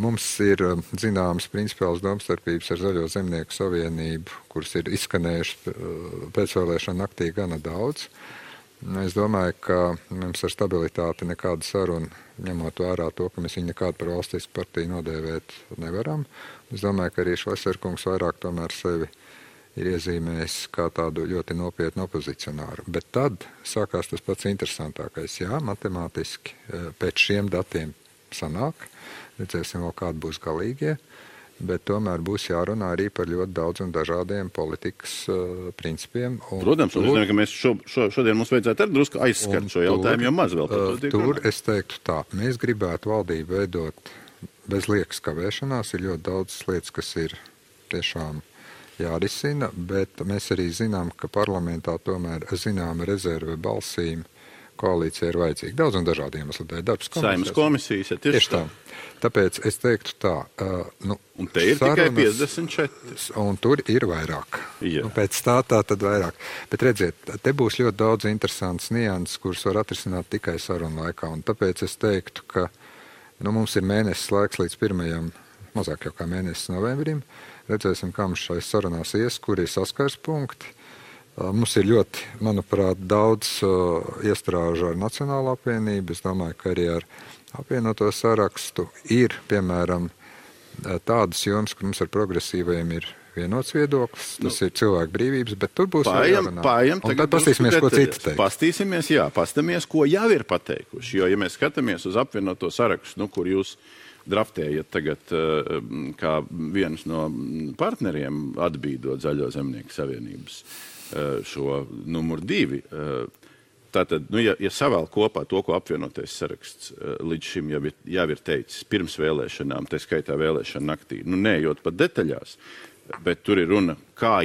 Mums ir zināmas principiālas domstarpības ar Zaļo zemnieku savienību, kuras ir izskanējušas pēcvēlēšana naktī gana daudz. Es domāju, ka mums ar stabilitāti nekāda saruna, ņemot vērā to, ka mēs viņu nekādu par valstisku partiju nodēvēt nevaram. Es domāju, ka arī Šleserkungs vairāk tomēr sevi ir iezīmējis kā tādu ļoti nopietnu opozicionāru. Bet tad sākās tas pats interesantākais. Jā, matemātiski pēc šiem datiem sanāk, redzēsim vēl kādi būs galīgie, bet tomēr būs jārunā arī par ļoti daudz un dažādiem politikas principiem. Protams, un es domāju, ka mēs šodien mums vajadzētu arī drusku aizskart šo jautājumu, jo maz vēl par to tiek runāt. Tur es teiktu tā, mēs gribētu valdību veidot bez liekas kavēšanās, ir ļoti daudz lietas, kas ir tiešām jārisina, bet mēs arī zinām, ka parlamentā tomēr zināma rezerve balsīm koalīcija ir vajadzīga. Daudz un dažādi iemesli dēļ. Darbs Saeimas komisijas, ja tieši tā. Tāpēc es teiktu tā. Un te ir tikai 54. Un tur ir vairāk. Jā. Pēc tā tad vairāk. Bet redziet, te būs ļoti daudz interesants nianses, kuras var atrisināt tikai sarunu laikā. Un tāpēc es teiktu, ka mums ir mēnesis laiks līdz 1. mazāk jau kā mēnesis novembrim. Redzēsim, kā mums šais sarunās ies, kur ir saskars punkti. Mums ir ļoti, manuprāt, daudz iestrāžu ar Nacionālo apvienību. Es domāju, ka arī ar apvienoto sarakstu ir, piemēram, tādas jomas, kur mums ar progresīvajiem ir vienots viedoklis. Tas ir cilvēku brīvības, bet tur būs jārunā. Un tad pastīsimies, ko citi teikt. Pastāmies, ko jau ir pateikuši. Jo, ja mēs skatāmies uz apvienoto sarakstu, kur jūs draftējat tagad kā viens no partneriem atbīdot Zaļo zemnieku savienības šo numur 2. Tātad, ja savēl kopā to, ko apvienotais saraksts līdz šim jau ir teicis pirms vēlēšanām, tā skaitā vēlēšana naktī, neejot pat detaļās, bet tur ir runa, kā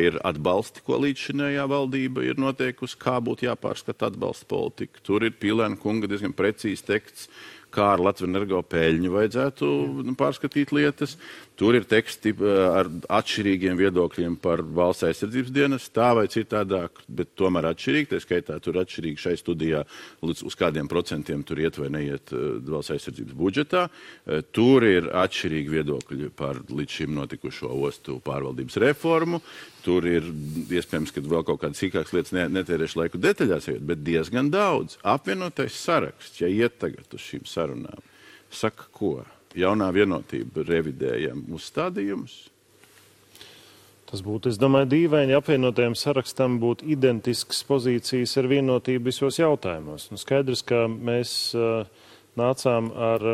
ir atbalsti, ko līdzšinējā valdība ir noteikusi, kā būtu jāpārskata atbalsta politika. Tur ir Pīlēna kunga diezgan precīzi teksts, kā ar Latvenergo peļņu vajadzētu pārskatīt lietas. Tur ir teksti ar atšķirīgiem viedokļiem par valsts aizsardzības dienas, tā vai citādāk, bet tomēr atšķirīgi. Tā skaitā tur atšķirīgi šai studijā, uz kādiem procentiem tur iet vai neiet valsts aizsardzības budžetā. Tur ir atšķirīgi viedokļi par līdz šim notikušo ostu pārvaldības reformu. Tur ir iespējams, ka vēl kaut kādas sīkākas lietas netērēšu laiku detaļās, bet diezgan daudz. Apvienotais saraksts, ja iet tagad uz šīm sarunām, saka ko? Jaunā vienotība revidējam uzstādījumus? Tas būtu, es domāju, dīvaini, ja apvienotajam sarakstam būtu identiskas pozīcijas ar vienotību visos jautājumos. Skaidrs, ka mēs nācām ar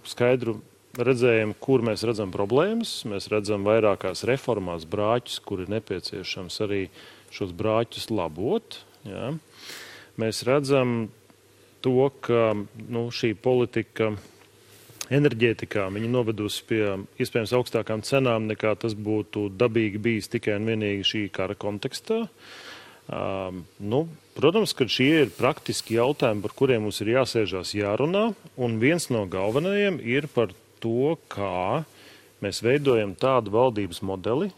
skaidru redzējumu, kur mēs redzam problēmas. Mēs redzam vairākās reformās brāķus, kur ir nepieciešams arī šos brāķus labot. Jā. Mēs redzam to, ka šī politika enerģētikā viņa novedusi pie iespējams augstākām cenām, nekā tas būtu dabīgi bijis tikai un vienīgi šī kara kontekstā. Protams, ka šie ir praktiski jautājumi, par kuriem mums ir jāsēžās jārunā, un viens no galvenajiem ir par to, kā mēs veidojam tādu valdības modeli,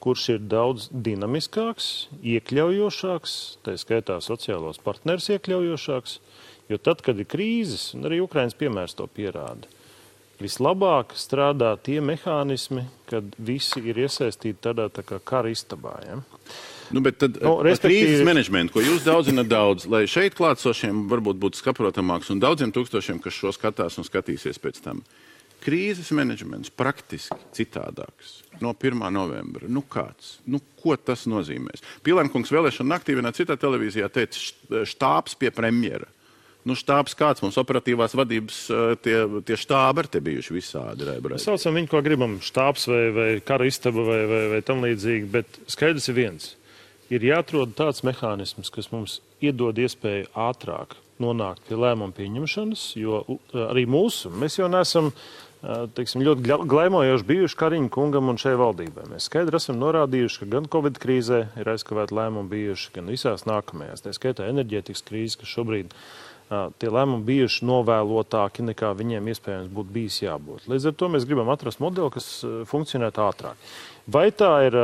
kurš ir daudz dinamiskāks, iekļaujošāks, tā skaitā sociālos partnerus iekļaujošāks, jo tad, kad ir krīzes, un arī Ukrainas piemērs to pierāda, vislabāk strādā tie mehānismi, kad visi ir iesaistīti tādā tā kā kara istabā. Ja? Bet tad krīzes menedžmentu, ko jūs daudzināt daudz, lai šeit klātsošiem varbūt būtu saprotamāks un daudziem tūkstošiem, kas šo skatās un skatīsies pēc tam. Krīzes menedžments praktiski citādāks no 1. novembra. Kāds? Ko tas nozīmēs? Pīlēna kungs vēlēšana naktī vienā citā televīzijā teica štābs pie premjera. Štābs kāds mums operatīvās vadības, tie štābi ar te bijuši visādi. Mēs saucam viņu, ko gribam, štābs vai kara istaba vai tam līdzīgi, bet skaidrs ir viens. Ir jāatrod tāds mehānisms, kas mums iedod iespēju ātrāk nonākt pie lēmumu pieņemšanas, jo arī mēs jau neesam ļoti glaimojoši bijuši Kariņa kungam un šai valdībai. Mēs skaidri esam norādījuši, ka gan Covid krīzē ir aizkavēti lēmumi bijuši, gan visās nākamajās. Tā skaitā enerģētikas krīze, kas šobrīd tie lēmumi bijuši novēlotāki, nekā viņiem iespējams būtu bijis jābūt. Līdz ar to mēs gribam atrast modeli, kas funkcionētu ātrāk. Vai tā ir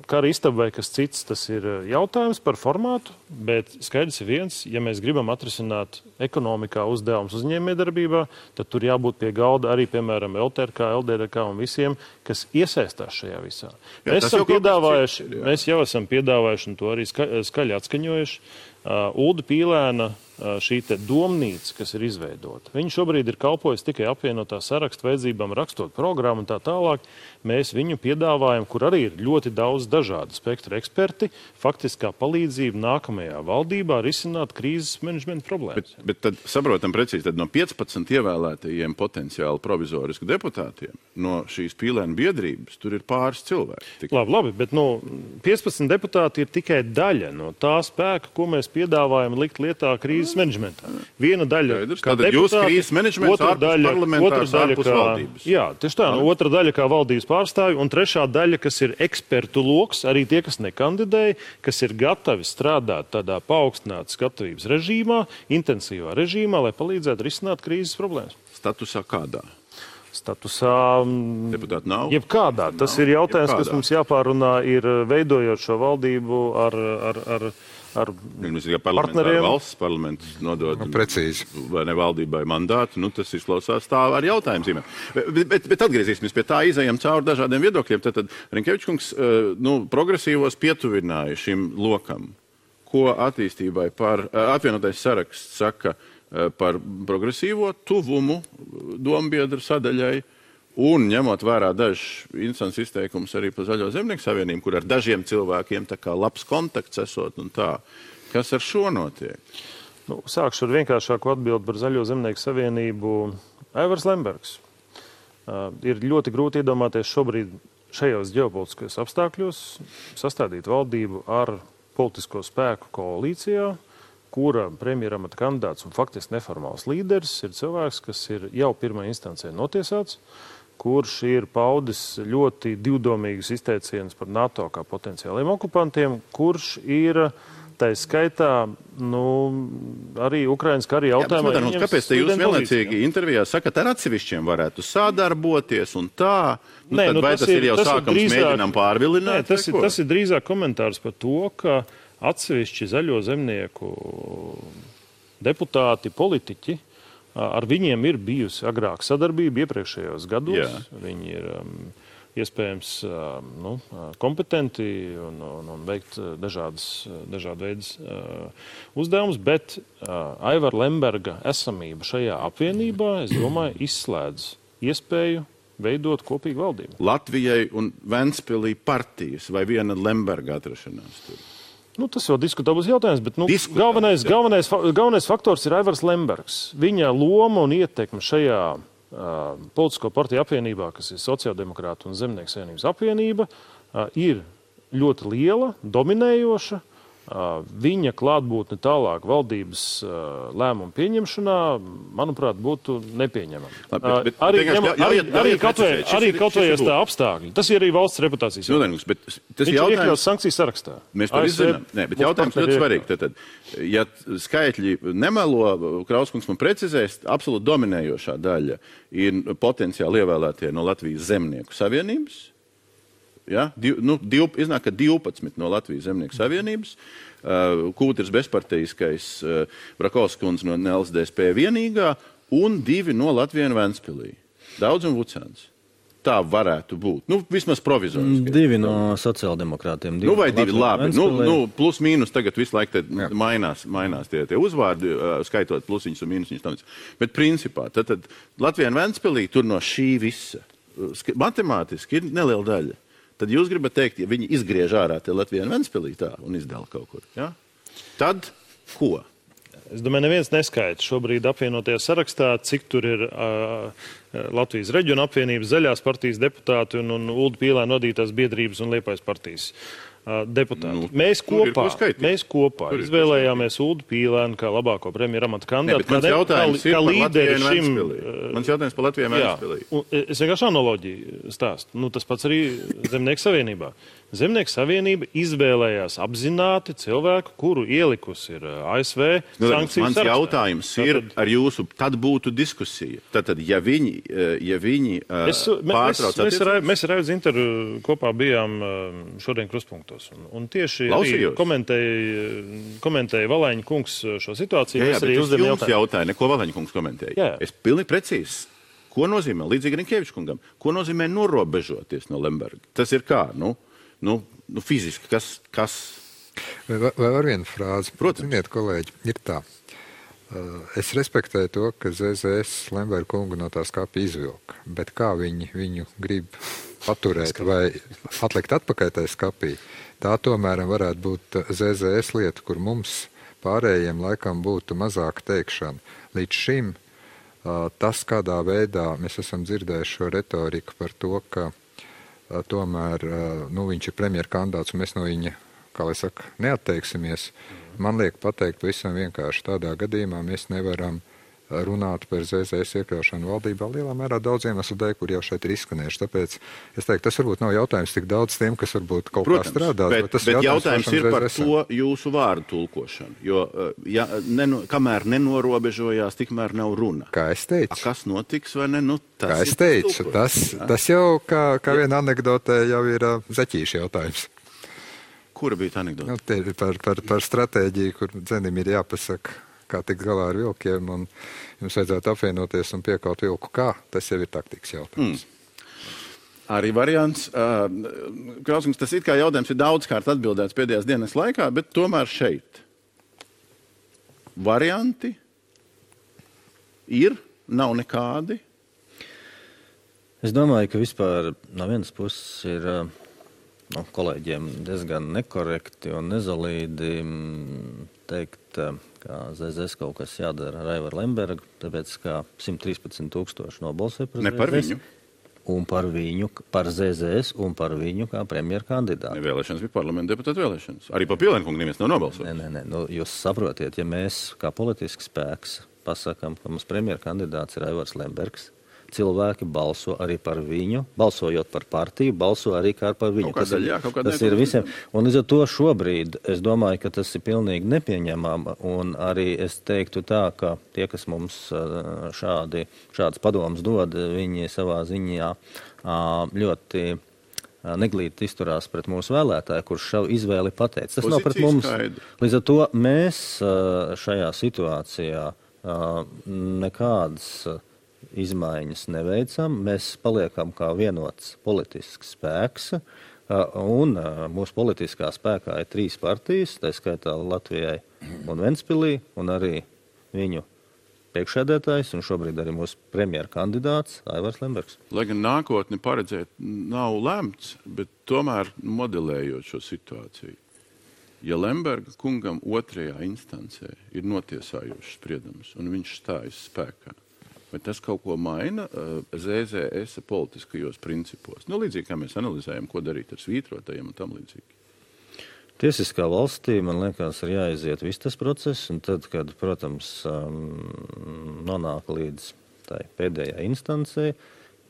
kara istaba vai kas cits, tas ir jautājums par formātu, bet skaidrs ir viens, ja mēs gribam atrisināt ekonomikā uzdevumus uzņēmējdarbībā, tad tur jābūt pie galda arī, piemēram, LTRK, LDRK un visiem, kas iesaistās šajā visā. Mēs jau esam piedāvājuši un to arī skaļi atskaņojuši. Ulda Pīlēna šī te domnīca, kas ir izveidota. Viņa šobrīd ir kalpojusi tikai apvienotā saraksta vajadzībām, rakstot programmu un tā tālāk. Mēs viņu piedāvājam, kur arī ir ļoti daudz dažādu spektru eksperti, faktiskā palīdzība nākamajā valdībā risināt krīzes menedžmenta problēmas. Bet tad saprotam precīzi, tad no 15 ievēlētajiem potenciāli provizorisku deputātiem, no šīs Pīlēna biedrības, tur ir pāris cilvēki. Labi, bet 15 deputāti ir tikai daļa no tā spēka, ko mēs piedāvājumi likt lietā krīzes menedžmentā. Viena daļa kā deputāti, jūs krīzes menedžments ārpus parlamentārs, ārpus valdības. Jā, tieši tā, otra daļa kā valdības pārstāvji, un trešā daļa, kas ir ekspertu loks, arī tie, kas nekandidēja, kas ir gatavi strādāt tādā paaugstinātas gatavības režīmā, intensīvā režīmā, lai palīdzētu risināt krīzes problēmas. Statusā kādā? Statusā deputāti nav? Jebkādā. Tas ir jautājums, kas mums jāpārunā, ir veidojot šo valdību ar partneriem. Valsts parlaments nodod precīzi. Vai ne valdībai mandātu, tas izklausās tā ar jautājumiem. Bet atgriezīsimies pie tā, izējam cauri dažādiem viedokļiem. Tad Rinkevičs kungs progresīvos pietuvināja šim lokam. Ko attīstībai par apvienotais saraksts saka par progresīvo tuvumu dombiedru sadaļai un ņemot vērā dažs instants izteikums arī par Zaļo zemnieku savienību, kur ar dažiem cilvēkiem tā kā labs kontakts esot un tā. Kas ar šo notiek? Sākšu ar vienkāršāku atbildi par Zaļo zemnieku savienību. Aivars Lembergs. Ir ļoti grūti iedomāties šobrīd šajos ģeopolitiskajos apstākļos sastādīt valdību ar politisko spēku koalīcijā, kura premjeramata kandidāts un faktiski neformāls līderis ir cilvēks, kas ir jau pirmā instancē notiesāts, kurš ir paudis ļoti divdomīgus izteicienus par NATO kā potenciāliem okupantiem, kurš ir tā skaitā arī Ukrainas kara jautājumā. Kāpēc te jūs vienlaicīgi intervijā sakat, ar atsevišķiem varētu sadarboties un tā? Vai tas ir jau sākums mēģinām pārvilināt? Tas ir drīzāk komentārs par to, ka atsevišķi Zaļo zemnieku deputāti, politiķi, ar viņiem ir bijusi agrāk sadarbība iepriekšējos gados. Jā. Viņi ir iespējams kompetenti un veikt dažādu veidu uzdevumus, bet Aivara Lemberga esamība šajā apvienībā, es domāju, izslēdz iespēju veidot kopīgu valdību. Latvijai un Ventspilī partijas vai viena Lemberga atrašanās tur? Tas vēl diskutabls jautājums, bet galvenais faktors ir Aivars Lembergs. Viņa loma un ietekme šajā politisko partiju apvienībā, kas ir Sociāldemokrātu un Zemnieku savienības apvienība, ir ļoti liela, dominējoša. Viņa klātbūtne tālāk valdības lēmumu pieņemšanā, manuprāt, būtu nepieņemama. Arī kaut vai tā apstākļi. Tas ir arī valsts reputācijas jautājums. Viņš ir iekļauts sankciju sarakstā. Mēs to izzinām. Bet jautājums ļoti svarīgi. Tad, ja skaitļi nemelo, Krauskungs man precizēs, absolūti dominējošā daļa ir potenciāli ievēlētie no Latvijas Zemnieku savienības. Ja? Iznāk, ka 12 no Latvijas Zemnieku savienības, Kūters bezparteiskais, Brakovskundze no LSDSP vienīgā un 2 no Latvijas un Ventspilī. Daudz un Vucāns. Tā varētu būt. Vismaz provizoriski. 2 no sociāldemokrātiem. Vai 2, labi. Plus mīnus tagad visu laiku mainās tie uzvārdi, skaitot plusiņus un mīnusiņus. Bet principā, tad Latvijas un Ventspilī tur no šī visa matemātiski ir neliela daļa. Tad jūs gribat teikt, ja viņi izgriež ārā te Latvijā un Ventspilī tā un izdala kaut kur. Ja? Tad ko? Es domāju, neviens neskaita šobrīd apvienotajā sarakstā, cik tur ir Latvijas reģiona apvienības, Zaļās partijas deputāti un Ulda Pīlēna vadītās biedrības un Liepājas partijas deputāti. Mēs kopā izvēlējāmies Uldu Pīlēnu kā labāko premjeramata kandidātu. Mans jautājums ir par Latviju un Ventspilī. Mans jautājums par Latviju un Ventspilī. Es vienkārši analoģiju stāstu. Tas pats arī Zemnieku savienībā. Zemnieku savienība izvēlējās apzināti cilvēku, kuru ielikusi ir ASV sankciju sarakstā. Mans jautājums ir ar jūsu, tad būtu diskusija. Tad, ja viņi pārtrauc attiecības... Mēs ar Aivu Zintaru kopā bijām šodien Kruspunktos. Un tieši komentēja Valaņa kungs šo situāciju. Jā, bet es jums jautāju, neko Valaņa kungs komentēja. Jā. Es pilnīgi precīzi. Ko nozīmē, līdzīgi Rinkeviča kungam, ko nozīmē norobežoties no Lemberga? Tas ir kā, fiziski, kas... Vai var viena frāze? Protams. Ziniet, kolēģi, ir tā. Es respektēju to, ka ZZS Lemberga kungu no tā skapja izvilka, bet kā viņu grib paturēt vai atlikt atpakaļ tajā skapī, tā tomēr varētu būt ZZS lieta, kur mums pārējiem laikam būtu mazāka teikšana. Līdz šim tas, kādā veidā mēs esam dzirdējuši šo retoriku par to, ka tomēr viņš ir premjera kandidāts un mēs no viņa kā lai saka, neatteiksimies, man liek pateikt pavisam vienkārši tādā gadījumā mēs nevaram runāt par ZZS iekļaušanu valdībā lielā mērā daudz iemeslu dēļ, kur jau šeit ir izskanējuši. Tāpēc es teiktu, tas varbūt nav jautājums tik daudz tiem, kas varbūt kaut kā strādā. Bet jautājums ir par to jūsu vārdu tulkošanu. Jo kamēr nenorobežojās, tikmēr nav runa. Kā es teicu. Kas notiks vai ne? Kā es teicu, tas jau kā viena anekdotē jau ir zeķīša jautājums. Kura bija tā anekdote? Te ir par stratēģiju, kur dzenim ir jāpasaka, kā tikt galā ar vilkiem, un jums vajadzētu apvienoties un piekaut vilku kā. Tas jau ir taktikas jautājums. Arī variants. Krauskungs, tas it kā jautājums ir daudzkārt atbildēts pēdējās dienas laikā, bet tomēr šeit. Varianti ir, nav nekādi. Es domāju, ka vispār no vienas puses ir kolēģiem diezgan nekorekti un nezalīdi teikt, ka ZZS kaut kas jādara ar Aivaru Lembergu, tāpēc kā 113,000 nobalsoja par ZZS. Ne par viņu. Un par viņu, par ZZS un par viņu kā premjeru kandidātu. Vēlēšanas bija parlamenta deputāta vēlēšanas. Arī par Pielēnkungu neviens nav nobalsojis. Nē. Jūs saprotiet, ja mēs kā politisks spēks pasakām, ka mums premjeru kandidāts ir Aivars Lembergs, cilvēki balso arī par viņu, balsojot par partiju, balso arī kā par viņu. Tas ir visiem. Un līdz ar to šobrīd es domāju, ka tas ir pilnīgi nepieņemama. Un arī es teiktu tā, ka tie, kas mums šādas padomas dod, viņi savā ziņā ļoti neglīti izturās pret mūsu vēlētāju, kurš šo izvēli pateica. Tas nav pret mums. Līdz ar to mēs šajā situācijā nekādas izmaiņas neveicam, mēs paliekam kā vienots politisks spēks, un mūsu politiskā spēkā ir 3 partijas, tā skaitā Latvijai un Ventspilī, un arī viņu priekšsēdētājs, un šobrīd arī mūsu premjera kandidāts Aivars Lembergs. Lai gan nākotni paredzēt nav lemts, bet tomēr modelējot šo situāciju. Ja Lemberga kungam 2. instancē ir notiesājošs spriedums, un viņš stājas spēkā, vai tas kaut ko maina ZZS politiskajos principos? Līdzīgi, kā mēs analizējam, ko darīt ar svītrotajiem un tam līdzīgi. Tiesiskā valstī, man liekas, ir jāiziet viss tas process, un tad, kad, protams, nonāk līdz tai pēdējai instancei,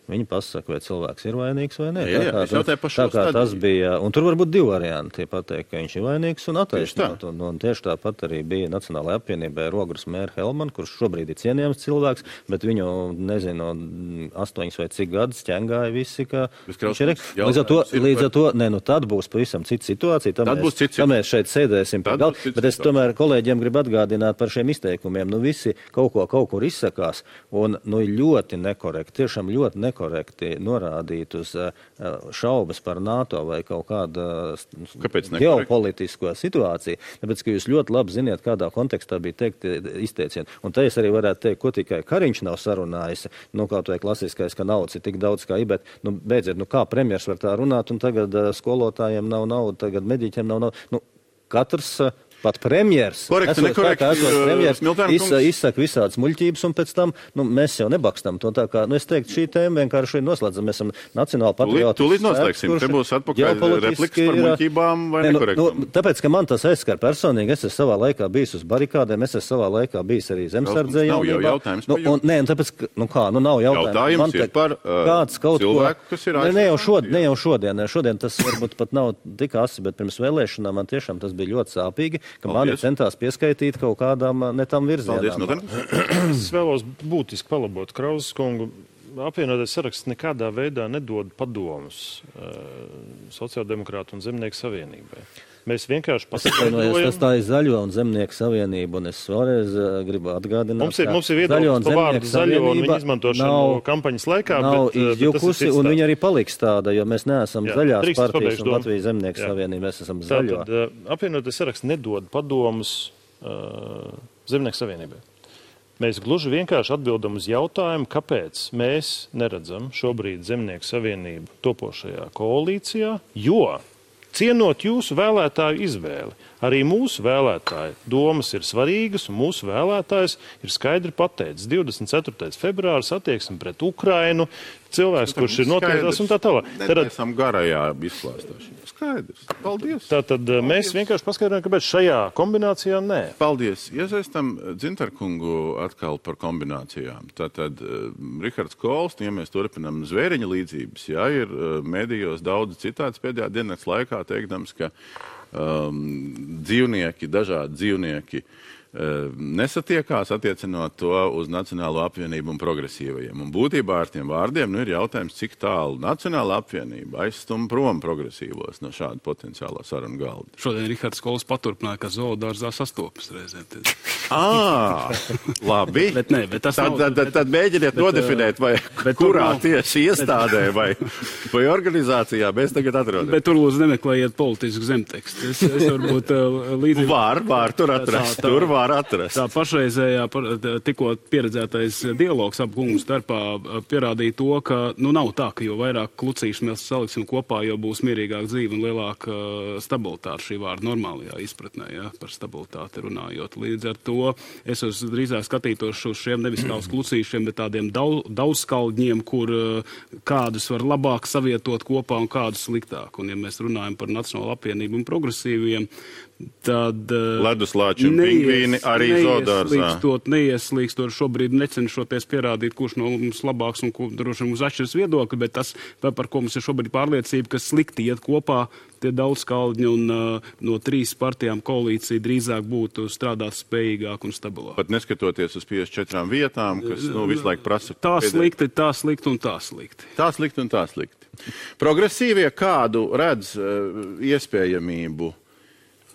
viņi pasaka, vai cilvēks ir vainīgs vai nē. Tā kā tas bija, un tur var būt 2 varianti. Pateikt, ka viņš ir vainīgs un attaisnot. Un tieši tāpat arī bija Nacionālajā apvienībā Rogras mēra Helman, kurš šobrīd ir cienījams cilvēks, bet viņu, nezinu, 8 vai cik gadus ķengāja visi, ka viņš ir. Līdz ar to, tad būs pavisam cita situācija. Tad mēs šeit sēdēsim pie galda. Bet es tomēr kolēģiem gribu atgādināt par šiem izteikumiem. Visi kaut kur izsakās, un ļoti nekorekti, tiešām ļoti nekorekti norādīt uz šaubas par NATO vai kaut kādu ģeopolitisko situāciju, tāpēc, ka jūs ļoti labi ziniet, kādā kontekstā bija teikt izteicieni. Un te es arī varētu teikt, ko tikai Kariņš nav sarunājis, kaut vai klasiskais, ka naudas ir tik daudz kā bet, beidziet, kā premjers var tā runāt, un tagad skolotājiem nav nauda, tagad mediķiem nav nauda. Katrs pat premjers, izsaka visādas muļķības, un pēc tam mēs jau nebakstam to tā kā, es teiktu, šī tēma vienkārši noslēdzam, mēs esam nacionāli patrioti. Tūlīt noslēgsim, te būs atpakaļ replikas par muļķībām vai nekorektumu. Tāpēc, ka man tas aizskar personīgi, es esmu savā laikā bijis uz barikādēm, es esmu savā laikā bijis arī zemsardzē jaunībā. Nav jautājums par jums. Tāpēc, nav jautājums. Jautājums ir par cilvēku, kas ir aizsardzē. Ne jau šodien tas varbūt pat nav tik asi, bet pirms vēlēšanām man tiešām tas bija ļoti sāpīgi, ka mani centās pieskaitīt kaut kādām ne tam virzienām. Es vēlos būtiski palabot Krauskungu. Apvienotais saraksts nekādā veidā nedod padomus Sociāldemokrātu un Zemnieku savienībai. Mēs vienkārši paskaidrojam. Tas tā ir Zaļo un Zemnieku savienība, un es vēlreiz gribu atgādināt, mums ir viedoklis par vārdu zaļo un viņa izmantošanu kampaņas laikā. Nav izjukusi, un viņa arī paliks tāda, jo mēs neesam zaļās partijas un Latvijas Zemnieku savienība, mēs esam zaļo. Tātad apvienotais saraksts nedod padomus Zemnieku savienībai. Mēs gluži vienkārši atbildam uz jautājumu, kāpēc mēs neredzam šobrīd Zemnieku savienību topošajā koalīcijā, jo cienot jūsu vēlētāju izvēli. Arī mūsu vēlētāju domas ir svarīgas, un mūsu vēlētājs ir skaidri pateicis. 24. februāris attieksme pret Ukrainu, cilvēks, kurš ir noteiktās un tā tālāk. Tad esam garajā izklāstāšanā. Skaidrs. Paldies. Tātad mēs vienkārši paskaidrojam, kāpēc šajā kombinācijā nē. Paldies. Iesaistam Dzintarkungu atkal par kombinācijām. Tātad Rihards Kols, ja mēs turpinām zvēriņa līdzības, jā, ir medijos daudz citāts pēdējā dienas laikā teikdams, ka dažādi dzīvnieki nesatiekās, attiecinot to uz Nacionālo apvienību un progresīvajiem. Un būtībā ar tiem vārdiem ir jautājums, cik tālu Nacionāla apvienība aizstum prom progresīvos no šāda potenciālā sarunu galda. Šodien Rihards Kols paturpināja, ka zoodārzā sastopas reizēm. Labi. bet tas tad mēģiniet nodefinēt, vai kurā tieši iestādē vai organizācijā mēs tagad atrodamies. Bet tur lūdzu nemeklējiet politisku zemtekstu. Es varbūt līdzīgi... Var tur atrast. Tur var atrast. Tā pašreizējā, tikko pieredzētais dialogs ap kungu starpā pierādīja to, ka nav tā, ka jo vairāk klucīšu mēs saliksim kopā, jo būs mierīgāk dzīve un lielāka stabilitāte šī vārda normālajā izpratnē, ja, par stabilitāti runājot. Līdz ar to es drīzāk skatītos uz šiem nevis kā uz klucīšiem, bet tādiem daudzskaldņiem, kur kādus var labāk savietot kopā un kādus sliktāk. Un ja mēs runājam par Nacionālo apvienību un progresīviem, tad leduslāči un pingvīni arī zoodārzā. Neieslīkstot šobrīd necenšoties pierādīt, kurš no mums labāks un kur droši mums atšķiras viedokļi, bet tas, par ko mums ir šobrīd pārliecība, ka slikti iet kopā tie daudzskaldņi un no 3 partijām koalīcija drīzāk būtu strādāt spējīgāk un stabilāk. Pat neskatoties uz 54 vietām, kas visu laiku prasa. Tā slikti un tā slikti. Tā slikti un tā slikti. Progresīvie kādu redz iespējamību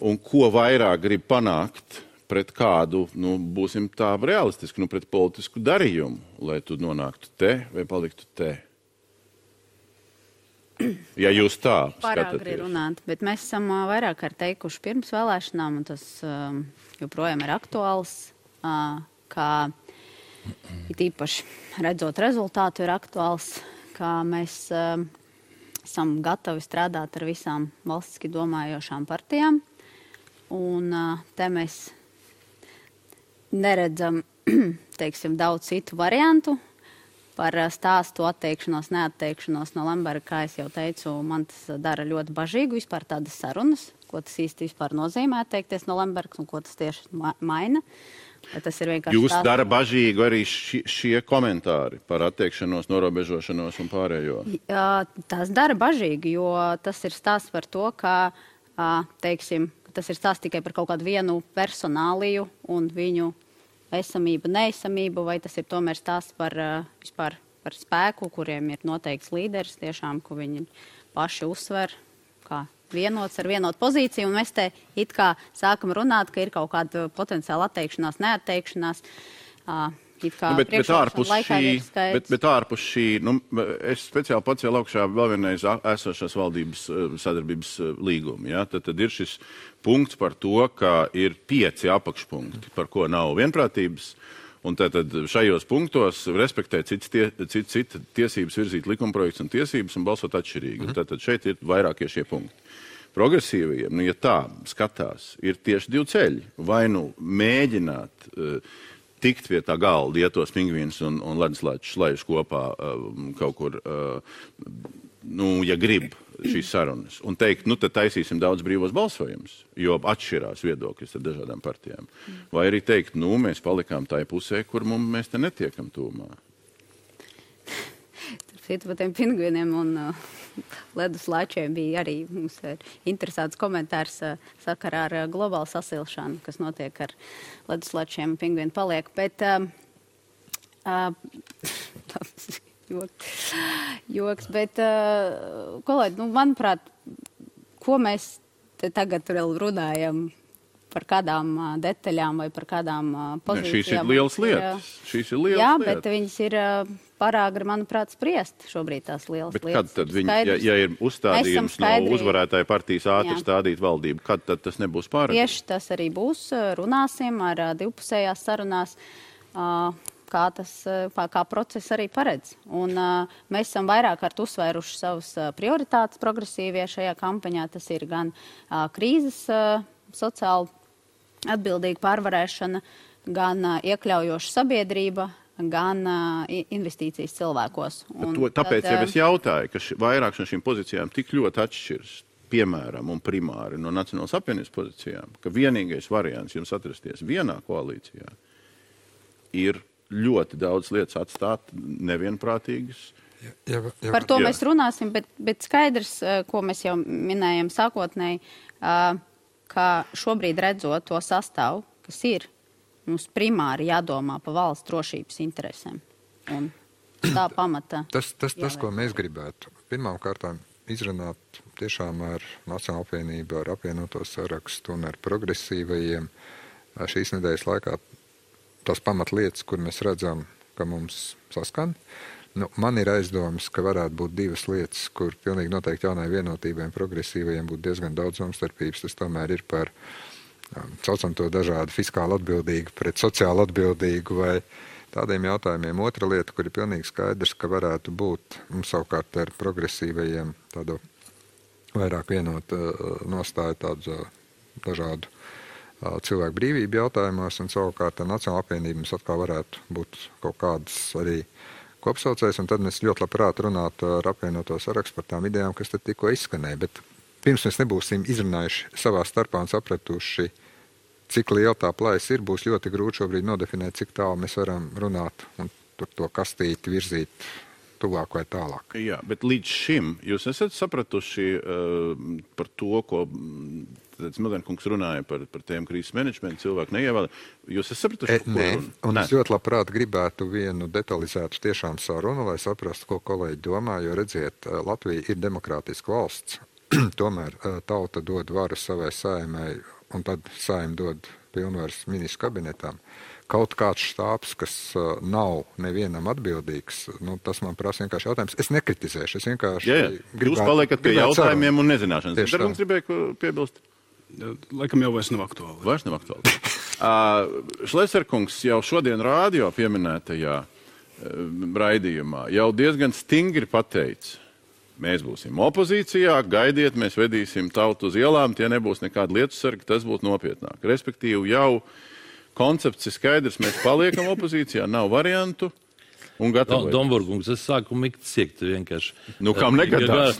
un ko vairāk grib panākt pret kādu, būsim tā realistiski, pret politisku darījumu, lai tu nonāktu te vai paliktu te? Ja jūs tā skatāties. Pāragri runāt, bet mēs esam vairāk kārt teikuši pirms vēlēšanām, un tas joprojām ir aktuāls, kā it īpaši redzot rezultātu ir aktuāls, kā mēs esam gatavi strādāt ar visām valstiski domājošām partijām. Un te mēs neredzam, teiksim, daudz citu variantu par stāstu atteikšanos, neatteikšanos no Lemberga, kā es jau teicu, man tas dara ļoti bažīgu vispār tādas sarunas, ko tas īsti vispār nozīmē atteikties no Lembergas un ko tas tieši maina. Tas ir vienkārši Jūs dara bažīgu arī šie komentāri par atteikšanos, norobežošanos un pārējo? Tas dara bažīgi, jo tas ir stāsts par to, ka, teiksim, tas ir stāsts tikai par kaut kādu vienu personāliju un viņu esamību, neesamību, vai tas ir tomēr stāsts par vispār par spēku, kuriem ir noteikts līderis, tiešām, ko viņi paši uzsver, kā vienots ar vienotu pozīciju, un mēs te it kā sākam runāt, ka ir kaut kāda potenciāla atteikšanās, neatteikšanās. Bet ārpus šī, es speciāli pacēlu augšā vēl vienreiz esošās valdības sadarbības līgumu. Ja? Tad ir šis punkts par to, ka ir 5 apakšpunkti, par ko nav vienprātības. Un tad šajos punktos respektē citas tiesības virzīt likumprojekts un tiesības un balsot atšķirīgi. Tad šeit ir vairākie šie punkti. Progresīvajiem, ja tā skatās, ir tieši 2 ceļi. Vai mēģināt tikt pie tā galda, ja tos pingvīnus un leduslāčus slēdz kopā kaut kur, ja grib šīs sarunas, un teikt, tad taisīsim daudz brīvos balsojumus, jo atšķirās viedokļus ar dažādām partijām. Vai arī teikt, mēs palikām tai pusē, kur mēs te netiekam tūmā. Par tiem pingvīniem un leduslāčiem bija arī mums interesants komentārs sakarā ar globālu sasilšanu, kas notiek ar leduslāčiem un pingvīnu paliek. Bet joks, bet kolēģi, manuprāt, ko mēs te tagad vēl runājam par kādām detaļām vai par kādām pozīcijām. Šīs ir lielas lietas. Jā, bet viņas ir parāgri, manuprāt, spriest šobrīd tās lielas lietas. Bet kad tad viņi, ja ir uzstādījums no uzvarētāja partijas ātri stādīt valdību, kad tad tas nebūs pārāk? Tieši tas arī būs. Runāsim ar divpusējās sarunās, kā process arī paredz. Un mēs esam vairāk kārt uzsvēruši savus prioritātes progresīvie šajā kampaņā. Tas ir gan krīzes sociāli atbildīga pārvarēšana, gan iekļaujoša sabiedrība, gan investīcijas cilvēkos. Tāpēc jau es jautāju, ka vairāk no šīm pozīcijām tik ļoti atšķiras, piemēram, un primāri no Nacionālās apvienības pozīcijām, ka vienīgais variants jums atrasties vienā koalīcijā ir ļoti daudz lietas atstāt nevienprātīgas. Par to mēs runāsim, bet skaidrs, ko mēs jau minējam sākotnēji, ka šobrīd redzot to sastāvu, kas ir, mums primāri jādomā par valsts drošības interesēm. Un tā pamata. Tas, ko mēs gribētu, pirmām kārtām izrunāt tiešām ar Nacionālo apvienību, ar apvienoto sarakstu un ar progresīvajiem šīs nedēļas laikā tās pamatlietas, kur mēs redzam, ka mums saskan. Man ir aizdomas, ka varētu būt divas lietas, kur pilnīgi noteikti jaunai vienotībai un progresīvajiem būtu diezgan daudz domstarpības. Tas tomēr ir par, saucam to dažādu fiskāli atbildīgu pret sociāli atbildīgu vai tādiem jautājumiem. Otra lieta, kur ir pilnīgi skaidrs, ka varētu būt mums savukārt ar progresīvajiem tādu vairāk vienot nostāju tādu dažādu cilvēku brīvību jautājumos, un savukārt ar Nacionālo apvienību mums atkal varētu būt kaut kādas arī kopsaucējs, un tad mēs ļoti labprāt runātu ar apvienoto sarakstu par tām idejām, kas tad tikko izskanēja. Bet pirms mēs nebūsim izrunājuši savā starpā un sapratuši, cik liela tā plājas ir, būs ļoti grūti šobrīd nodefinēt, cik tālu mēs varam runāt un tur to kastīti virzīt tuvāk vai tālāk. Jā, bet līdz šim jūs esat sapratuši par to, ko Mildenkungs runāja par tiem krīzes menedžmentu, cilvēku neievēlē. Jūs esat sapratuši? Nē, un es ļoti labprāt gribētu vienu detalizētu tiešām sarunu, lai saprastu, ko kolēģi domā, jo redziet, Latvija ir demokrātiska valsts. Tomēr tauta dod varu savai saimai, un tad saima dod pilnvaras ministru kabinetam. Kaut kāds štābs, kas nav nevienam atbildīgs, tas man prasa vienkārši jautājums. Es nekritizēšu, es vienkārši gribētu. Jūs paliekat pie jautājumiem un nezināšanas. Darbums gribēja piebilst? Laikam jau vairs nav aktuāli. Vairs nav aktuāli. Šleserkungs jau šodien rādio pieminētajā raidījumā jau diezgan stingri pateica, mēs būsim opozīcijā, gaidiet, mēs vedīsim tautu uz ielām, tie nebūs nekādi lietusargi, tas būtu nopietnāk. Respektīvi jau koncepts ir skaidrs, mēs paliekam opozīcijā, nav variantu. Domburgungs, es sāku mikt siekt vienkārši. Kam negadās?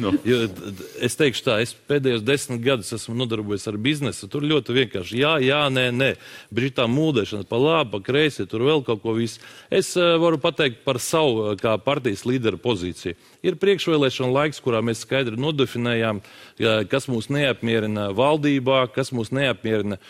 Es teikšu tā, es pēdējos 10 gadus esmu nodarbojies ar biznesu, tur ļoti vienkārši jā, nē. Brītā mūdēšana pa labi, pa kreisi, tur vēl kaut ko visu. Es varu pateikt par savu kā partijas līdera pozīciju. Ir priekšvēlēšana laiks, kurā mēs skaidri nodefinējām, kas mūs neapmierina valdībā, kas mūs neapmierina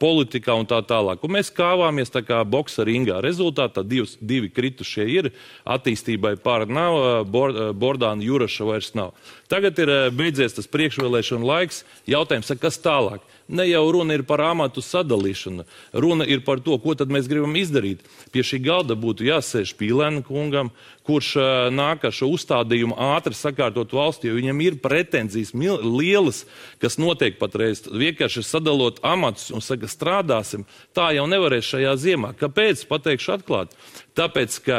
politikā un tā tālāk. Un mēs kāvāmies tā kā boksa ringā. Rezultātā divi kritušie ir, attīstībai pār nav, Bordāna Juraša vairs nav. Tagad ir beidzies tas priekšvēlēšana laiks, jautājums, kas tālāk? Ne jau runa ir par amatu sadalīšanu, runa ir par to, ko tad mēs gribam izdarīt. Pie šī galda būtu jāsēž Pīlēna kungam, kurš nāk ar šo uzstādījumu ātri sakārtot valsti, jo viņam ir pretenzijas lielas, kas notiek patreiz. Vienkārši sadalot amatus un saka, strādāsim, tā jau nevarēs šajā ziemā. Kāpēc? Pateikšu atklāt. Tāpēc, ka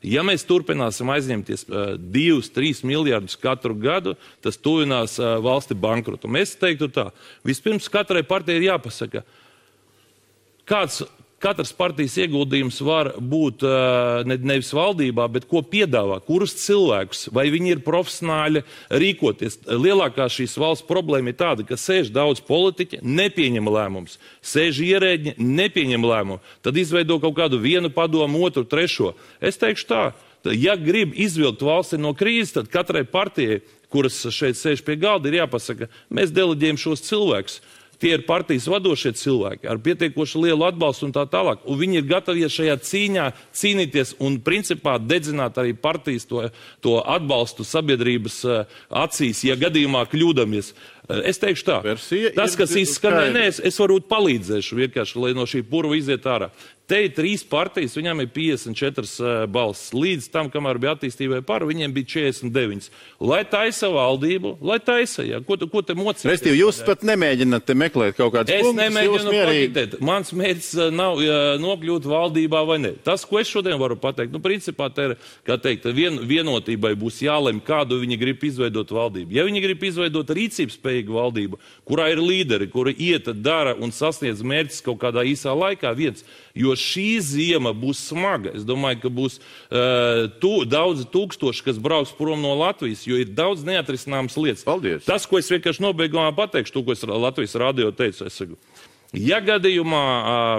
ja mēs turpināsim aizņemties 2-3 miljardus katru gadu, tas tuvinās valsti bankrotu. Mēs teiktu tā, vispirms katrai partijai ir jāpasaka, katras partijas ieguldījums var būt nevis valdībā, bet ko piedāvā, kurus cilvēkus, vai viņi ir profesionāļi rīkoties. Lielākā šīs valsts problēma ir tāda, ka sēž daudz politiķi, nepieņem lēmumus, sēž ierēģi, nepieņem lēmumu, tad izveido kaut kādu vienu padomu, otru, trešo. Es teikšu tā, ja grib izvilkt valsti no krīzes, tad katrai partijai, kuras šeit sēž pie galda, ir jāpasaka, mēs deleģējam šos cilvēkus. Tie ir partijas vadošie cilvēki ar pietiekoši lielu atbalstu un tā tālāk. Un viņi ir gatavi šajā cīņā cīnīties un principā dedzināt arī partijas to atbalstu sabiedrības acīs, ja gadījumā kļūdamies. Es teikšu tā, tas, kas izskanēja, es varbūt palīdzēšu vienkārši, lai no šī purva iziet ārā. Te ir 3 partijas, viņām ir 54 balsis. Līdz tam, kamēr bija attīstībai par, viņiem bija 49. Lai taisa valdību, lai taisa, jā. Ko te mocīties? Restīvi, jūs pat nemēģināt te meklēt kaut kādus punktus. Es nemēģinu pakitēt. Mans mērķis nav nokļūt valdībā vai ne. Tas, ko es šodien varu pateikt, principā te ir, kā teikt, vienotībai būs jālem, kādu viņi grib izveidot valdību. Ja viņi grib izveidot rīcības spējīgu spējīga valdība, kurā ir līderi, kuri iet, dara un sasniedz mērķis kaut kādā īsā laikā viens. Jo šī ziema būs smaga. Es domāju, ka būs daudzi tūkstoši, kas brauks prom no Latvijas, jo ir daudz neatrisināmas lietas. Paldies. Tas, ko es vienkārši nobeigumā pateikšu, to, ko es Latvijas radio teicu, es saku, ja gadījumā,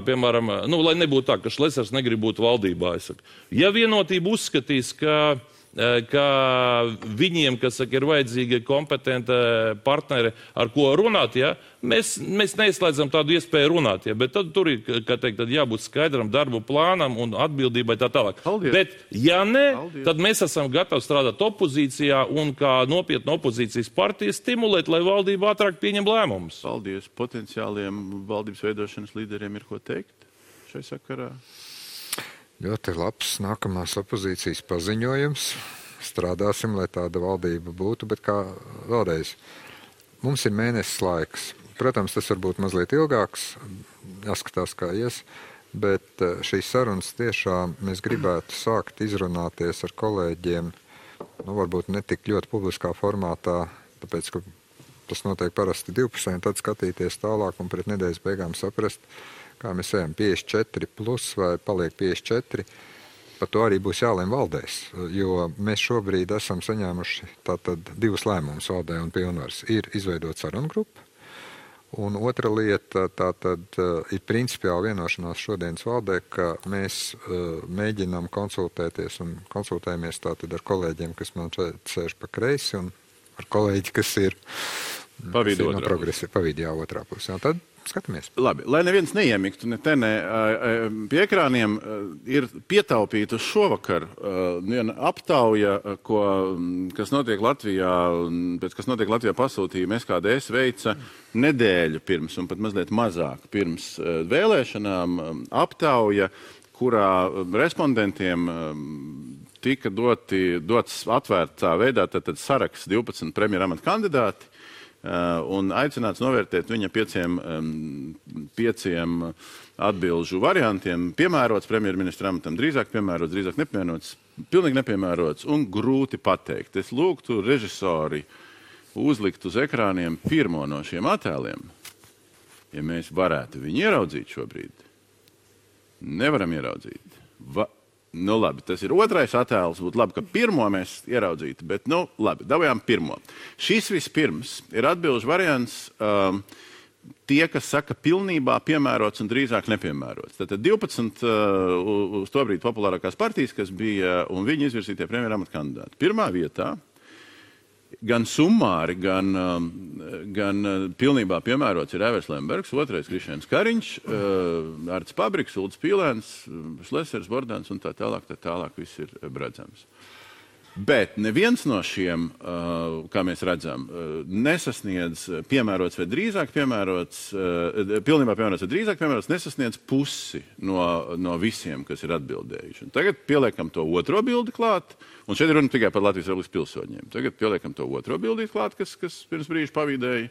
piemēram, lai nebūtu tā, ka Šlesers negrib būt valdībā, es saku, ja Vienotība uzskatīs, ka viņiem, kas saka, ir vajadzīga kompetenta partneri, ar ko runāt, ja, mēs neizslēdzam tādu iespēju runāt, ja, bet tad tur ir, kā teikt, tad jābūt skaidram darbu plānam un atbildībai tā tālāk. Paldies. Bet, ja ne, Paldies. tad mēs esam gatavi strādāt opozīcijā un kā nopietna opozīcijas partija stimulēt, lai valdība ātrāk pieņem lēmumus. Paldies. Potenciāliem valdības veidošanas līderiem ir ko teikt šai sakarā? Ļoti labs nākamās opozīcijas paziņojums. Strādāsim, lai tāda valdība būtu, bet kā vēlreiz, mums ir mēnesis laiks. Protams, tas var būt mazliet ilgāks, jāskatās, kā ies, bet šīs sarunas tiešām mēs gribētu sākt izrunāties ar kolēģiem, varbūt ne tik ļoti publiskā formātā, tāpēc, ka tas notiek parasti divpusēji, tad skatīties tālāk un pret nedēļas beigām saprast, kā mēs ejam 54 plus vai paliek 54, par to arī būs jālēm valdēs, jo mēs šobrīd esam saņēmuši tātad divus lēmumus valdē un pilnvaras. Ir izveidot sarunu grupu, un otra lieta tātad ir principiāli vienošanās šodienas valdē, ka mēs mēģinām konsultēties un konsultējamies tātad ar kolēģiem, kas man sēž pa kreisi, un ar kolēģi, kas ir Pa vidu otrā pusē. Un tad skatāmies. Labi, lai neviens neiemiktu ne te, ne pie ekrāniem, ir pietaupīta uz šovakar viena aptauja, kas notiek Latvijā pasūtījuma SKDS veica nedēļu pirms un pat mazliet mazāk pirms vēlēšanām aptauja, kurā respondentiem tika dots atvērtā veidā tātad saraksts 12 premjeramata kandidāti, un aicināts novērtēt viņa pieciem atbilžu variantiem. Piemērots premjerministra amatam, drīzāk piemērots, drīzāk nepiemērots, pilnīgi nepiemērots un grūti pateikt. Es lūgtu režisori uzlikt uz ekrāniem pirmo no šiem attēliem, ja mēs varētu viņu ieraudzīt šobrīd. Nevaram ieraudzīt. Labi, tas ir otrais attēls, būtu labi, ka pirmo mēs ieraudzītu, bet, labi, dabājām pirmo. Šis vispirms ir atbilžu variants tie, kas saka pilnībā piemērots un drīzāk nepiemērots. Tātad 12 uz to brīdi populārākās partijas, kas bija un viņi izvirzītie premjeramata kandidāti. Pirmā vietā gan summāri, gan pilnībā piemērots ir Evers Lembergs, otrais Krišjāns Kariņš, Arts Pabriks, Ulds Pīlēns, Šlesers, Bordāns un tā tālāk viss ir redzams. Bet neviens no šiem, kā mēs redzam, nesasniedz piemērots vai drīzāk piemērots, pilnībā piemērots vai drīzāk piemērots, nesasniedz pusi no visiem, kas ir atbildējuši. Un tagad pieliekam to otro bildi klāt, un šeit ir runa tikai par Latvijas Republikas pilsoņiem. Tagad pieliekam to otro bildi klāt, kas pirms brīža pavīdēja.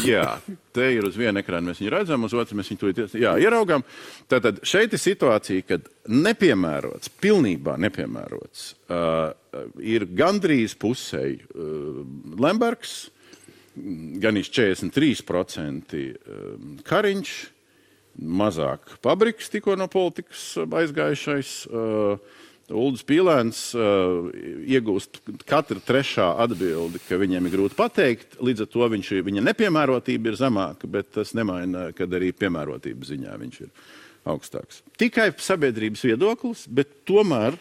Jā, te ir uz vienu ekrānu mēs viņu redzam, uz otru mēs viņu ieraugām. Tātad šeit ir situācija, kad nepiemērots, pilnībā nepiemērots, ir gandrīz pusēji Lembergs, gan 43% Kariņš, mazāk Pabriks tikko no politikas aizgājušais, Uldis Pīlēns iegūst katra trešā atbildi, ka viņiem ir grūti pateikt, līdz ar to viņa nepiemērotība ir zemāka, bet tas nemaina, kad arī piemērotības ziņā viņš ir augstāks. Tikai sabiedrības viedoklis, bet tomēr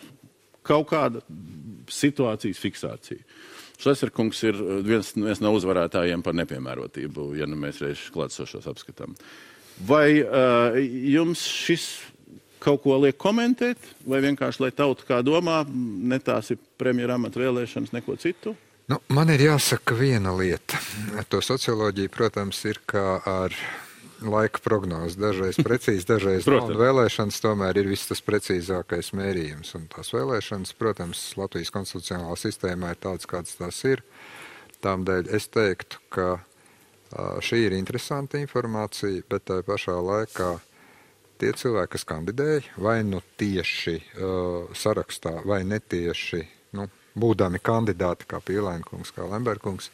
kaut kāda situācijas fiksācija. Šleserkungs ir viens no uzvarētājiem par nepiemērotību, ja mēs reiz klātsošos apskatām. Vai jums šis kaut ko liek komentēt, vai vienkārši, lai tauta kā domā, ne tās ir premjeramata vēlēšanas, neko citu? Man ir jāsaka viena lieta. To socioloģija, protams, ir kā ar laika prognozi. Dažreiz precīzi, dažreiz nav. Vēlēšanas tomēr ir viss tas precīzākais mērījums. Un tās vēlēšanas, protams, Latvijas konstitucionālā sistēmā ir tādas, kādas tās ir. Tādēļ es teiktu, ka šī ir interesanta informācija, bet tā pašā laikā tie cilvēki, kas kandidēja, vai tieši sarakstā, vai netieši, būdami kandidāti kā Pīlēnkungs, kā Lemberkungs,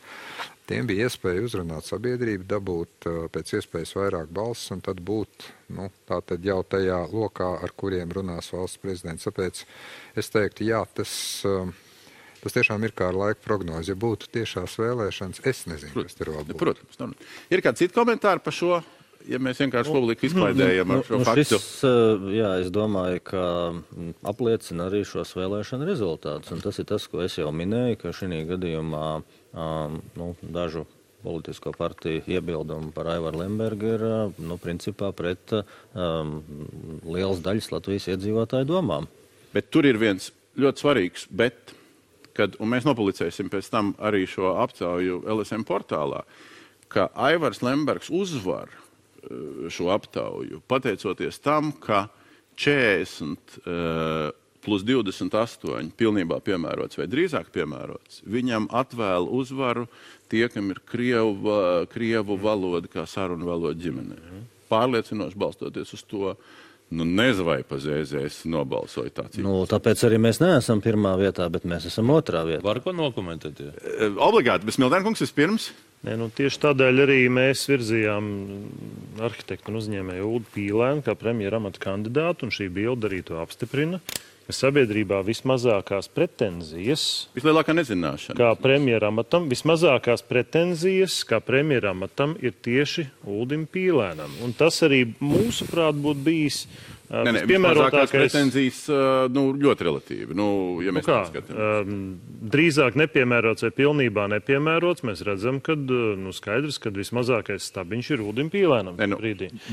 tiem bija iespēja uzrunāt sabiedrību, dabūt pēc iespējas vairāk balsis un tad būt tātad jau tajā lokā, ar kuriem runās valsts prezidents. Tāpēc es teiktu, jā, tas tiešām ir kā ar laika prognozi. Ja būtu tiešās vēlēšanas, es nezinu, kas tur vēl būtu. Protams. Ir kāds cits komentāri par šo? Ja mēs vienkārši publiku izklaidējam ar šo faktu. Es domāju, ka apliecina arī šos vēlēšanu rezultātus. Un tas ir tas, ko es jau minēju, ka šī gadījumā dažu politisko partiju iebildumu par Aivaru Lembergu ir principā pret lielas daļas Latvijas iedzīvotāju domām. Bet tur ir viens ļoti svarīgs, un mēs nopublicēsim pēc tam arī šo aptauju LSM portālā, ka Aivars Lembergs uzvar šo aptauju, pateicoties tam, ka 40 plus 28 pilnībā piemērots vai drīzāk piemērots, viņam atvēl uzvaru tie, kam ir krievu valoda kā sarunu valoda ģimenē. Pārliecinoši balstoties uz to, nezinu, vai pa ZZS nobalsoja tāds. Tāpēc arī mēs neesam pirmā vietā, bet mēs esam otrā vietā. Var ko nokomentēt? Obligāti, bet Smiltēnkungs vispirms? Tieši tādēļ arī mēs virzījām arhitektu un uzņēmēju Uldu Pīlēnu kā premjera amata kandidātu, un šī bilde arī to apstiprina, ka sabiedrībā vismazākās pretenzijas vislielākā nezināšana kā premjera amatam, vismazākās pretenzijas kā premjera amatam ir tieši Uldim Pīlēnam. Un tas arī mūsuprāt būtu bijis vismazākās pretenzijas ļoti relatīvi. Ja mēs skatām. Drīzāk nepiemērots vai pilnībā nepiemērots, mēs redzam, ka skaidrs, ka vismazākais stabiņš ir Uldim Pīlēnam.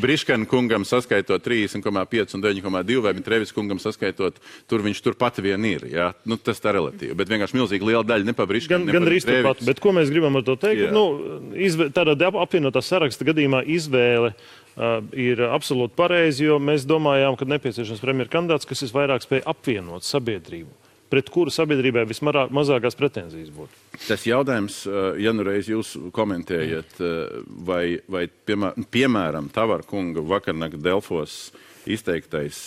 Briškana kungam saskaitot 30,5 un 9,2 vai Mitrevis kungam saskaitot, viņš turpat vien ir. Ja? Tas tā relatīvi. Bet vienkārši milzīgi liela daļa ne pa Briškanu, gan arī turpat. Bet ko mēs gribam ar to teikt? Tādā apvienotā saraksta gadījumā izvēle ir absolūti pareizi, jo mēs domājām, ka nepieciešams premjera kandidāts, kas visvairāk spēj apvienot sabiedrību, pret kuru sabiedrībai vismazākās pretenzijas būtu. Tas jautājums, ja reiz jūs komentējat, vai piemēram Tavara kunga vakarnakt Delfos izteiktais,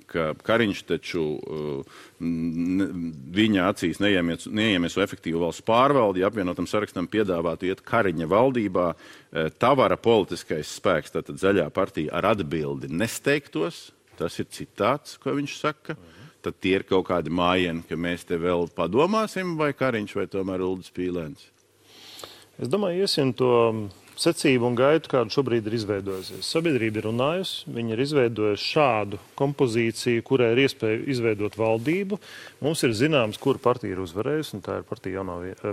ka Kariņš taču viņa acīs neiemies efektīvu valsts pārvaldi, ja apvienotam sarakstam piedāvātu iet Kariņa valdībā, Tavara politiskais spēks, tātad Zaļā partija ar atbildi nesteigtos, tas ir citāts, ko viņš saka, tad tie ir kaut kādi mājieni, ka mēs te vēl padomāsim, vai Kariņš, vai tomēr Uldis Pīlēns? Es domāju, iesim to secību un gaitu, kāda šobrīd ir izveidojusies. Sabiedrība ir runājusi, viņi ir izveidojuši šādu kompozīciju, kurai ir iespēja izveidot valdību. Mums ir zināms, kura partija ir uzvarējusi, un tā ir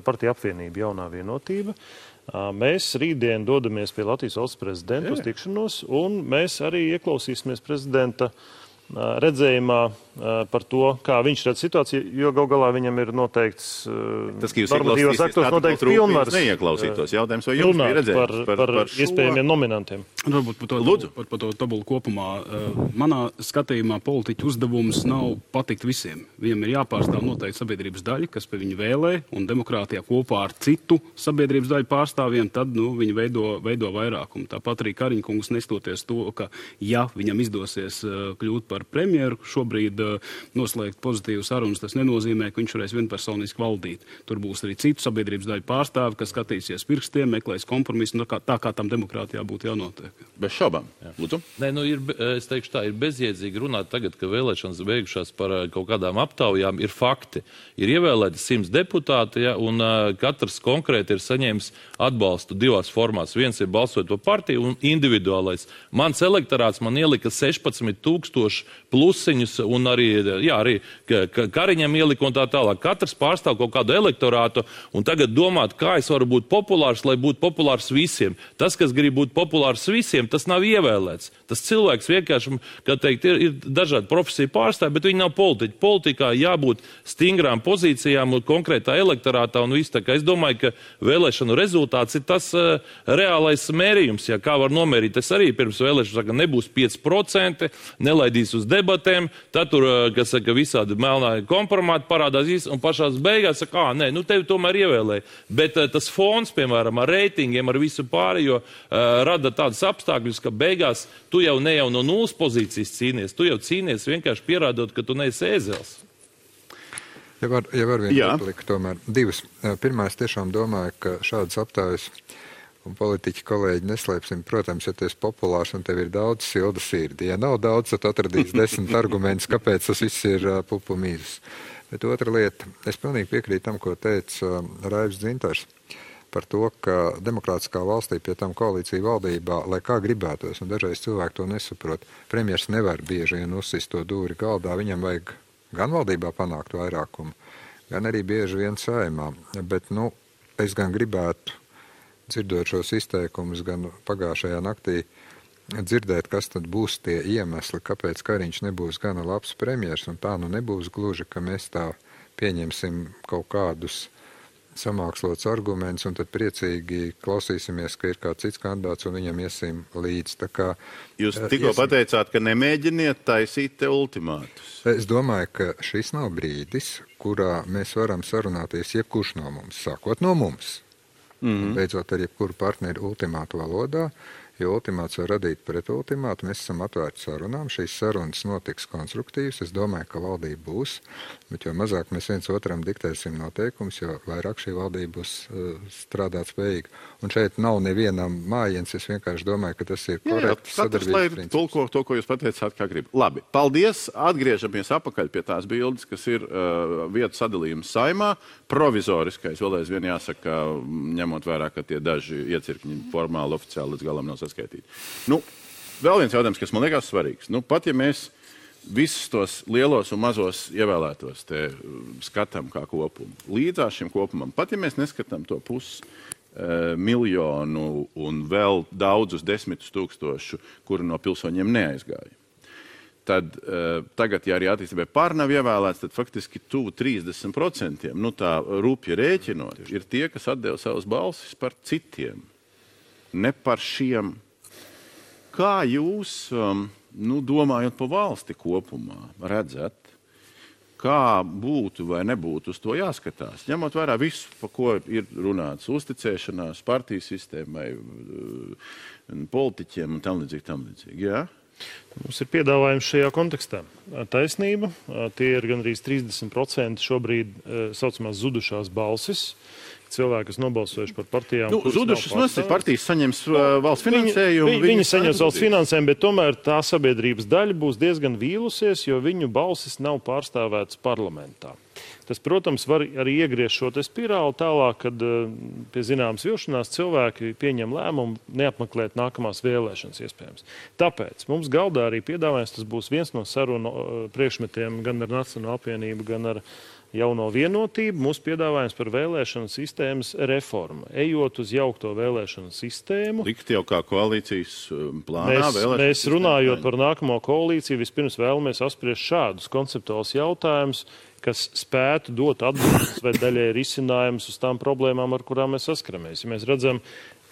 partija apvienība Jaunā vienotība. Mēs rītdien dodamies pie Latvijas valsts prezidenta uz tikšanos, un mēs arī ieklausīsimies prezidenta redzējumā par to, kā viņš redz situāciju, jo gal galā viņam ir noteikts normatīvos aktos noteikts pilnvars neieklausītos jautājums, vai jums bija redzējums par iespējamiem nominantiem. Varbūt par to tabulu kopumā. Manā skatījumā politiķu uzdevums nav patikt visiem. Viņam ir jāpārstāv noteikti sabiedrības daļa, kas pie viņu vēlē, un demokrātijā kopā ar citu sabiedrības daļu pārstāvjiem, tad viņi veido vairākumu. Tāpat arī Kariņkungs nestoties to, ka ja viņam izdosies kļūt par premjeru, šobrīd noslēgt pozitīvu sarunas, tas nenozīmē, ka viņš varēs vienpersoniski valdīt. Tur būs arī citu sabiedrības daļu pārstāvi, kas skatīsies pirkstiem, meklēs kompromisu, tā kā tam demokrātijā būtu jānotiek. Bez šaubām. Lūdzu. Es teikšu tā, ir bezjēdzīgi runāt tagad, ka vēlēšanas beigušās par kaut kādām aptaujām, ir fakti. Ir ievēlēti 100 deputāti, un katrs konkrēti ir saņēmis atbalstu divās formās. Viens ir balsot par partiju un individuālais. Mans elektorāts man ielika 16,000 plusiņus, un arī Kariņam ielika un tā tālāk. Katrs pārstāv kaut kādu elektorātu, un tagad domāt, kā es varu būt populārs, lai būtu populārs visiem. Tas, kas grib būt populārs visiem, tas nav ievēlēts. Tas cilvēks vienkārši, kā teikt, ir dažādi profesiju pārstāvi, bet viņi nav politiķi. Politikā jābūt stingrām pozīcijām un konkrētā elektorātā un viss. Tā kā es domāju, ka vēlēšanu rezultāts ir tas reālais mērījums. Kā var nomērīt, es arī pirms vēlēšanas saka, nebūs 5%, nelaidīs uz debatēm, tad tur, kas saka, visādi melnā kompromāti parādās un pašās beigās saka, tevi tomēr ievēlēja. Bet tas fons, piemēram, ar reitingiem, ar visu pārējo, rada tādas apstākļus, ka beigās tu jau ne jau no nulles pozīcijas cīnies, tu jau cīnies vienkārši pierādot, ka tu neesi ēzels. Ja var viena replika tomēr. Divas. Pirmā, es tiešām domāju, ka šādas aptājas un politiķi kolēģi neslēpsim. Protams, ja tu esi populārs un tev ir daudz silda sirdi. Ja nav daudz, tad atradīs 10 argumentus, kāpēc tas viss ir pupu mīzes. Bet otra lieta, es pilnīgi piekrītu tam, ko teica Raivs Dzintars par to, ka demokrātiskā valstī pie tam koalīcija valdībā, lai kā gribētos, un dažreiz cilvēki to nesaprot, premjers nevar bieži vien uzsist to dūri galdā, viņam vajag gan valdībā panākt vairākumu, gan arī bieži vien saimā. Bet, es gan gribētu, dzirdot šos izteikumus, gan pagājušajā naktī dzirdēt, kas tad būs tie iemesli, kāpēc Kariņš nebūs gana labs premjers, un tā nebūs gluži, ka mēs tā pieņemsim kaut kādus samākslots arguments, un tad priecīgi klausīsimies, ka ir kāds cits kandidāts, un viņam iesim līdz. Tā kā, jūs tikko pateicāt, ka nemēģiniet taisīt te ultimātus. Es domāju, ka šis nav brīdis, kurā mēs varam sarunāties jebkurš no mums, sākot no mums. Beidzot ar jebkuru partneri ultimātu valodā, jo ultimāts var radīt pret ultimātu. Mēs esam atvērti sarunām, šīs sarunas notiks konstruktīvas. Es domāju, ka valdība būs, bet jo mazāk mēs viens otram diktēsim noteikumus, jo vairāk šī valdība būs strādāt spējīga. Un šeit nav nevienam mājiens, es vienkārši domāju, ka tas ir korekts sadarbības princips. Tulko to, ko jūs pateicāt, kā grib. Labi, paldies. Atgriežamies apakaļ pie tās bildes, kas ir vietu sadalījums saimā. Provizoriskais, vēl aizvien jāsaka, ņemot vērā, ka tie daži iecirkņi formāli, oficiāli līdz galam nav saskaitīti. Vēl viens jautājums, kas man liekas svarīgs. Pat ja mēs visus tos lielos un mazos ievēlētos te skatām kā kopumu, līdzās šim kopumam, pat ja mēs neskatām to miljonu un vēl daudzus 10 000, kuri no pilsoņiem neaizgāja, tad tagad, ja arī attīstībai pār nav ievēlēts, tad faktiski tuvu 30%, tā rūpja rēķinot, ir tie, kas atdeva savas balsis par citiem. Ne par šiem. Kā jūs, domājot par valsti kopumā, redzat, kā būtu vai nebūtu uz to jāskatās? Ņemot vērā visu, par ko ir runāts, uzticēšanās, partiju sistēmai, politiķiem un tam līdzīgi. Jā? Mums ir piedāvājums šajā kontekstā. Taisnība, tie ir gandrīz 30% šobrīd saucamās zudušās balsis. Cilvēki, kas nobalsojuši par partijām. Zudušas nosacīt, partijas saņems valsts finansējumu. Viņi saņems valsts finansējumu, bet tomēr tā sabiedrības daļa būs diezgan vīlusies, jo viņu balsis nav pārstāvētas parlamentā. Tas, protams, var arī iegriezt šo spirāli tālāk, kad pie zināmas vilšanās cilvēki pieņem lēmumu neapmeklēt nākamās vēlēšanas iespējams. Tāpēc mums galdā arī piedāvājums, tas būs viens no sarunu priekšmetiem gan ar Nacionālo apvienību, gan ar Jauno vienotību, mūsu piedāvājums par vēlēšanu sistēmas reformu. Ejot uz jaukto vēlēšanu sistēmu. Likt jau kā koalīcijas plānā mēs runājot par nākamo koalīciju, vispirms vēlamies apspriest šādus konceptuālus jautājumus, kas spētu dot atbildes vai daļai risinājumus uz tām problēmām, ar kurām mēs saskaramies. Ja mēs redzam,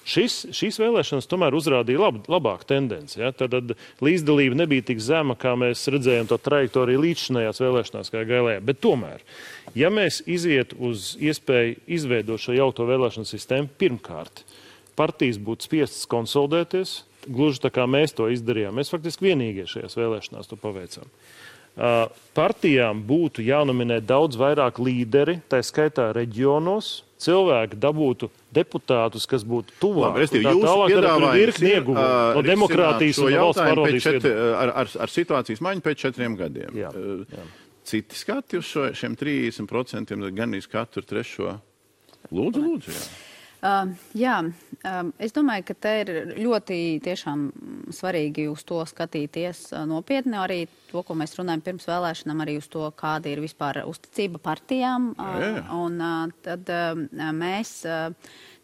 šīs vēlēšanas tomēr uzrādīja labāku tendenci. Ja? Tad līdzdalība nebija tik zema, kā mēs redzējām to trajektoriju līdzšinējās vēlēšanās kā gailējā. Bet tomēr, ja mēs iziet uz iespēju izveidot šo jaukto vēlēšanu sistēmu, pirmkārt, partijas būtu spiestas konsolidēties, gluži tā kā mēs to izdarījām. Mēs faktiski vienīgie šajās vēlēšanās to paveicām. Partijām būtu jānominē daudz vairāk līderi, tā skaitā reģionos, cilvēki dabūtu deputātus, kas būtu tuvāk. Jūsu piedāvājums ir no demokrātijas un valsts pārvaldības ar situācijas maiņu pēc 4 gadiem. Jā. Citi skati uz šiem 30%, gan iz katru trešo. Lūdzu, jā. Es domāju, ka te ir ļoti tiešām svarīgi uz to skatīties nopietni, arī to, ko mēs runājam pirms vēlēšanām, arī uz to, kāda ir vispār uzticība partijām. Un tad mēs,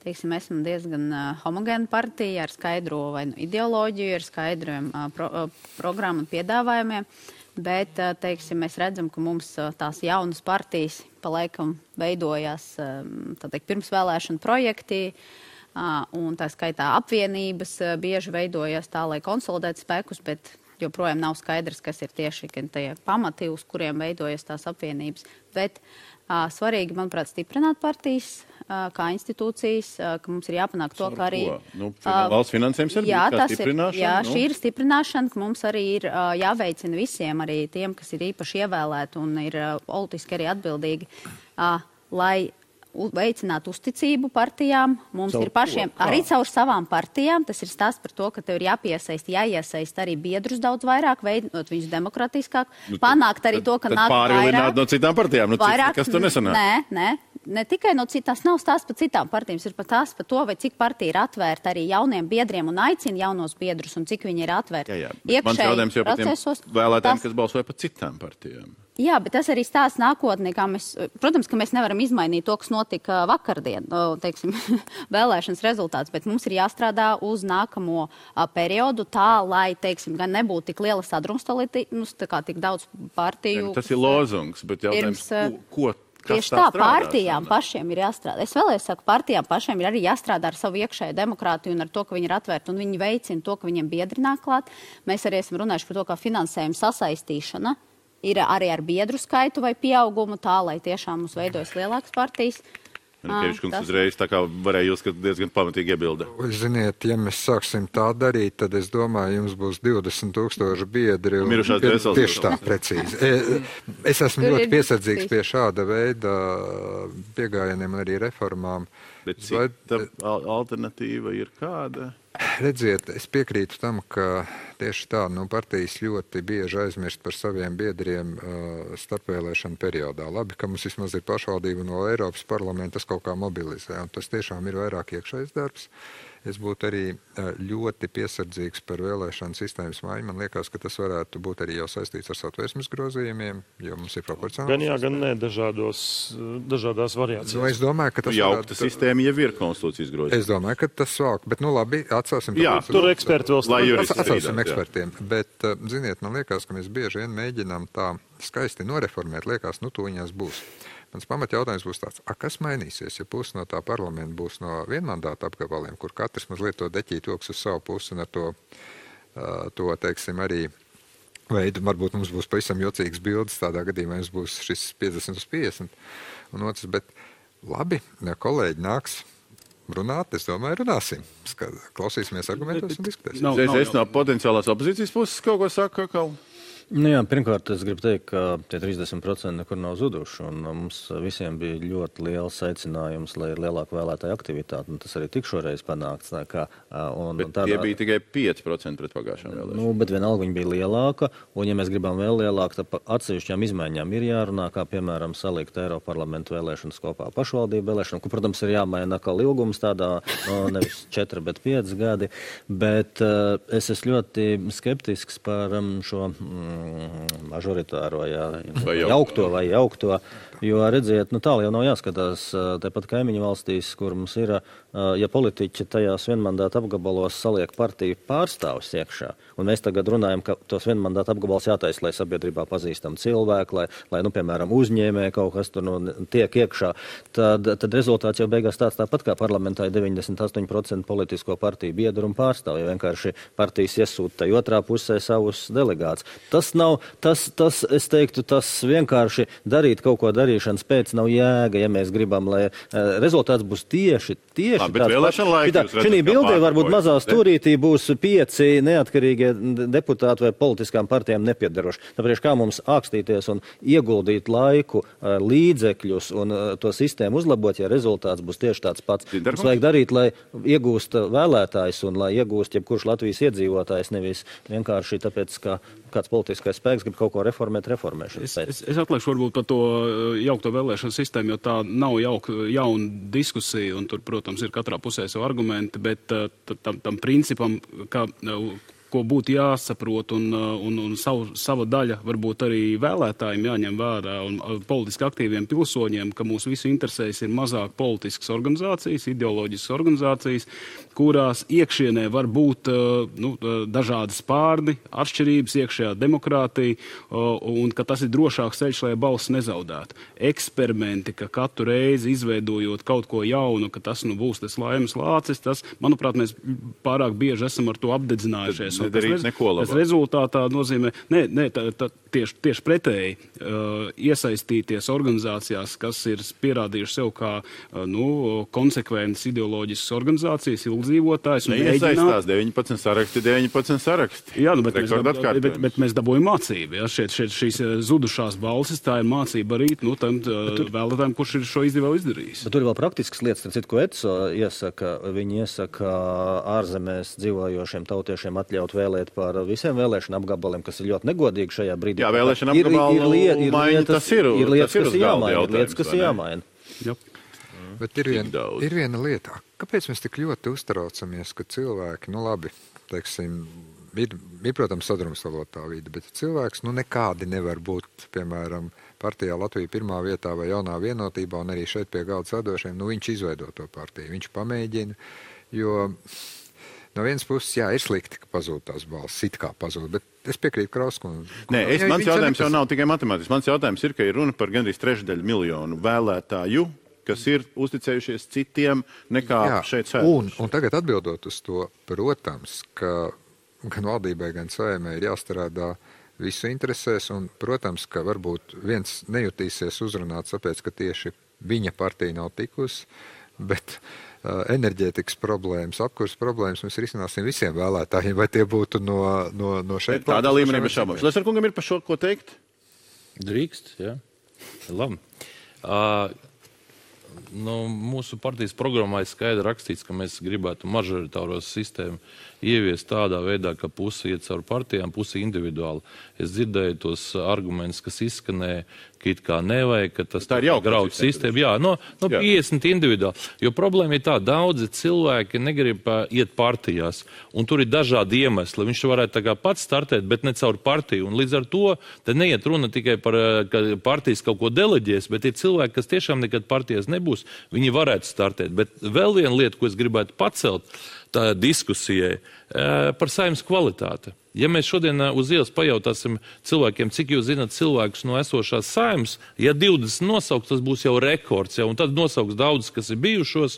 teiksim, esam diezgan homogēna partija ar skaidro vai ideoloģiju, ar skaidriem programmu un piedāvājumiem. Bet, teiksim, mēs redzam, ka mums tās jaunas partijas pa laikam veidojās pirms vēlēšanu projektī, un tā skaitā apvienības bieži veidojās tā, lai konsolidētu spēkus, bet joprojām nav skaidrs, kas ir tieši tie pamati, uz kuriem veidojas tās apvienības. Bet svarīgi, manuprāt, stiprināt partijas, kā institūcijas, ka mums ir jāpanāk to, ka arī... Valsts finansējums ir stiprināšana? Jā, šī ir stiprināšana, ka mums arī ir jāveicina visiem, arī tiem, kas ir īpaši ievēlēti un ir politiski arī atbildīgi, lai veicināt uzticību partijām. Mums ir pašiem, arī caur savām partijām, tas ir stāsts par to, ka tev ir jāiesaist arī biedrus daudz vairāk, veidot viņus demokratiskāk, panākt arī to, ka nāk vairāk. Pārvilināt no citām partijām, kas tur nesanāk? Ne tikai no citās, nav stāsts par citām partijām, ir pat tās par to, vai cik partija ir atvērta arī jauniem biedriem un aicina jaunos biedrus, un cik viņi ir atvērti. Mans jautājums jau par tiem vēlētājiem, kas balsoja par citām partijām. Jā, bet tas arī stāsts nākotnē, protams, ka mēs nevaram izmainīt to, kas notika vakardien, teiksim, vēlēšanas rezultāts, bet mums ir jāstrādā uz nākamo periodu tā, lai, teiksim, gan nebūtu tik liela sadrumstalība, tik daudz partiju. Tas ir lozungs, bet jautājums, ko tieši tā, partijām pašiem ir jāstrādā. Es vēlreiz saku, partijām pašiem ir arī jāstrādā ar savu iekšēju demokrātiju un ar to, ka viņi ir atvērti un viņi veicina to, ka viņiem biedri nāk klāt. Mēs arī esam runājuši par to, kā finansējuma sasaistīšana ir arī ar biedru skaitu vai pieaugumu tā, lai tiešām mums veidojas lielākas partijas. Kevičs kungs uzreiz tā kā varēja uzskatīt diezgan pamatīgi iebilda. Ziniet, ja mēs sāksim tā darīt, tad es domāju, jums būs 20,000 biedri. Mirušās dvēseles. Tieši tā, precīzi. Es esmu ļoti piesardzīgs pie šāda veida piegājieniem arī reformām. Bet cita alternatīva ir kāda? Redziet, es piekrītu tam, ka tieši tā, partijas ļoti bieži aizmirst par saviem biedriem starpvēlēšanu periodā. Labi, ka mums vismaz ir pašvaldība no Eiropas parlamenta, tas kaut kā mobilizē, un tas tiešām ir vairāk iekšējs darbs. Es būtu arī ļoti piesardzīgs par vēlēšanu sistēmas maiņu. Man liekas, ka tas varētu būt arī jau saistīts ar Satversmes grozījumiem, jo mums ir proporcionāls. Gan jā, gan nē, dažādās variācijās. Es domāju, ka tas jaukta sistēma jau ir konstitūcijas grozījuma. Es domāju, ka tas valk, bet labi, atsāsim. Jā, tur eksperti vēl atsāsim ekspertiem, bet, ziniet, man liekas, ka mēs bieži vien mēģinām tā skaisti noreformēt, liekas, tuņās būs. Mans pamatjautājums būs tāds, kas mainīsies, ja pusi no tā parlamenta būs no vienmandāta apgabaliem, kur katrs mazliet to deķīt joks uz savu pusi un ar to teiksim, arī veidu, varbūt mums būs pavisam jocīgs bildes, tādā gadījumā mums būs šis 50/50 un otrs, bet labi, ja kolēģi nāks runāt, es domāju, runāsim. Klausīsimies argumentos un diskutēsim. Es no potenciālās opozīcijas puses kaut ko saku, ka... Jā, pirmkārt, es gribu teikt, ka tie 30% nekur nav zuduši, un mums visiem bija ļoti liels aicinājums, lai ir lielāka vēlētāja aktivitāte, un tas arī tik šoreiz panākts. Bet tie bija tikai 5% pret pagājušām vēlēšanām. Bet vienalga viņa bija lielāka, un ja mēs gribam vēl lielāku, tad atsevišķām izmaiņām ir jārunā, kā piemēram salikt Eiroparlamentu vēlēšanas kopā pašvaldību vēlēšanu, kur, protams, ir jāmaina atkal ilgums tādā, nevis 4, bet 5 gadi, bet es esmu ļoti skeptisks par šo mažoritāro, jaukto, jo, redziet, tālu jau nav jāskatās, tepat kaimiņu valstīs, kur mums ir, ja politiķi tajās vienmandāta apgabalos saliek partiju pārstāvus iekšā, un mēs tagad runājam, ka tos vienmandāta apgabalos jātaisa, lai sabiedrībā pazīstam cilvēku, lai piemēram, uzņēmē kaut kas tur tiek iekšā, tad rezultāts jau beigās tāpat kā parlamentā ir 98% politisko partiju biedru un pārstāvju, ja vienkārši partijas iesūta tai otrā pusē savus delegātus. Es teiktu, tas vienkārši darīt kaut ko darīšanas pēc nav jēga, ja mēs gribam, lai rezultāts būs tieši tāds. Šī bildē varbūt mazā stūrītī būs 5 neatkarīgie deputāti vai politiskām partijām nepiedaroši. Tāpēc kā mums ākstīties un ieguldīt laiku, līdzekļus un to sistēmu uzlabot, ja rezultāts būs tieši tāds pats. Mums vajag darīt, lai iegūst vēlētājs un lai iegūst jebkurš Latvijas iedzīvotājs, nevis vienkārši tāpēc, ka kāds politiskais spēks grib kaut ko reformēšanas pēc. Es atliekšu varbūt par to jaukto vēlēšanu sistēmu, jo tā nav jauna diskusija, un tur, protams, ir katrā pusē savu argumenti, bet tam principam, ko būtu jāsaprot un sava daļa varbūt arī vēlētājiem jāņem vērā un politiski aktīviem pilsoņiem, ka mūsu visu interesēs ir mazāk politiskas organizācijas, ideoloģiskas organizācijas, kurās iekšienē var būt dažādas pārdi, atšķirības, iekšējā demokrātija, un ka tas ir drošāks ceļš, lai balss nezaudētu. Eksperimenti, ka katru reizi izveidojot kaut ko jaunu, ka tas būs tas laimes lācis, tas, manuprāt, mēs pārāk bieži esam ar to apdedzinājušies. nedarīt neko labāk. Tas rezultātā nozīmē, tieši pretēji, iesaistīties organizācijās, kas ir pierādījuši sev kā konsekventas ideoloģiskas organizācijas, ilgdzīvotājs. Neiesaistās 19 saraksti. Jā, bet mēs dabūjam mācību. Ja? Šīs zudušās balsis, tā ir mācība arī tam vēlētājiem, kurš ir šo izdevēju izdarījis. Bet tur ir vēl praktiskas lietas, citu, ko ETSO iesaka. Viņi iesaka ārzemēs dzīvojošiem tautiešiem atļaut vēlēt par visiem vēlēšanu apgabaliem, kas ir ļoti negodīgi šajā brīdī. Jā, vēlēšana apgabalu maiņa, tas ir lietas, kas ir jāmaina. Bet ir viena lieta. Kāpēc mēs tik ļoti uztraucamies, ka cilvēki, teiksim, ir, protams, sadrumstalotā vide, bet cilvēks nekādi nevar būt, piemēram, partijā Latvija pirmā vietā vai jaunā vienotībā, un arī šeit pie galda sēdošiem, viņš izveido to partiju, viņš pamēģina, jo no vienas puses, jā, ir slikti, ka pazūd tās balsis, it kā pazūd, bet es piekrītu Krauskundze. Mans jautājums jau nav tikai matemātisks. Mans jautājums ir, ka ir runa par gandrīz 1/3 miljonu vēlētāju, kas ir uzticējušies citiem nekā šeit sēdošiem. Un tagad atbildot uz to, protams, ka gan valdībai, gan Saeimai ir jāstrādā visu interesēs, un, protams, ka varbūt viens nejutīsies uzrunāts, tāpēc, ka tieši viņa partija nav tikusi, bet enerģētikas problēmas, apkurs problēmas mēs risināsim visiem vēlētājiem, vai tie būtu no šeit. Tādā līmenī bez šaubām. Šlesnerkungam ir par šo ko teikt? Drīkst, jā. Labi. Mūsu partijas programmā ir skaidri rakstīts, ka mēs gribētu mažoritāro sistēmu ieviest tādā veidā, ka pusi iet caur partijām, pusi individuāli. Es dzirdēju tos argumentus, kas izskanēja, ka it kā nevajag, ka tas graudu sistēmu. Jā, 50 individuāli. Jo problēma ir tā, daudzi cilvēki negrib iet partijās, un tur ir dažādi iemesli. Viņš varētu tā kā pats startēt, bet ne caur partiju. Un līdz ar to te neiet runa tikai par, ka partijas kaut ko deleģēs, bet ir cilvēki, kas tiešām nekad partijas nebūs, viņi varētu startēt. Bet vēl viena lieta, ko es gribētu pacelt tā diskusijai, par Saeimas kvalitāti. Ja mēs šodien uz ielas pajautāsim cilvēkiem, cik jūs zināt cilvēkus no esošās Saeimas, ja 20 nosauks, tas būs jau rekords, un tad nosauks daudz, kas ir bijušos,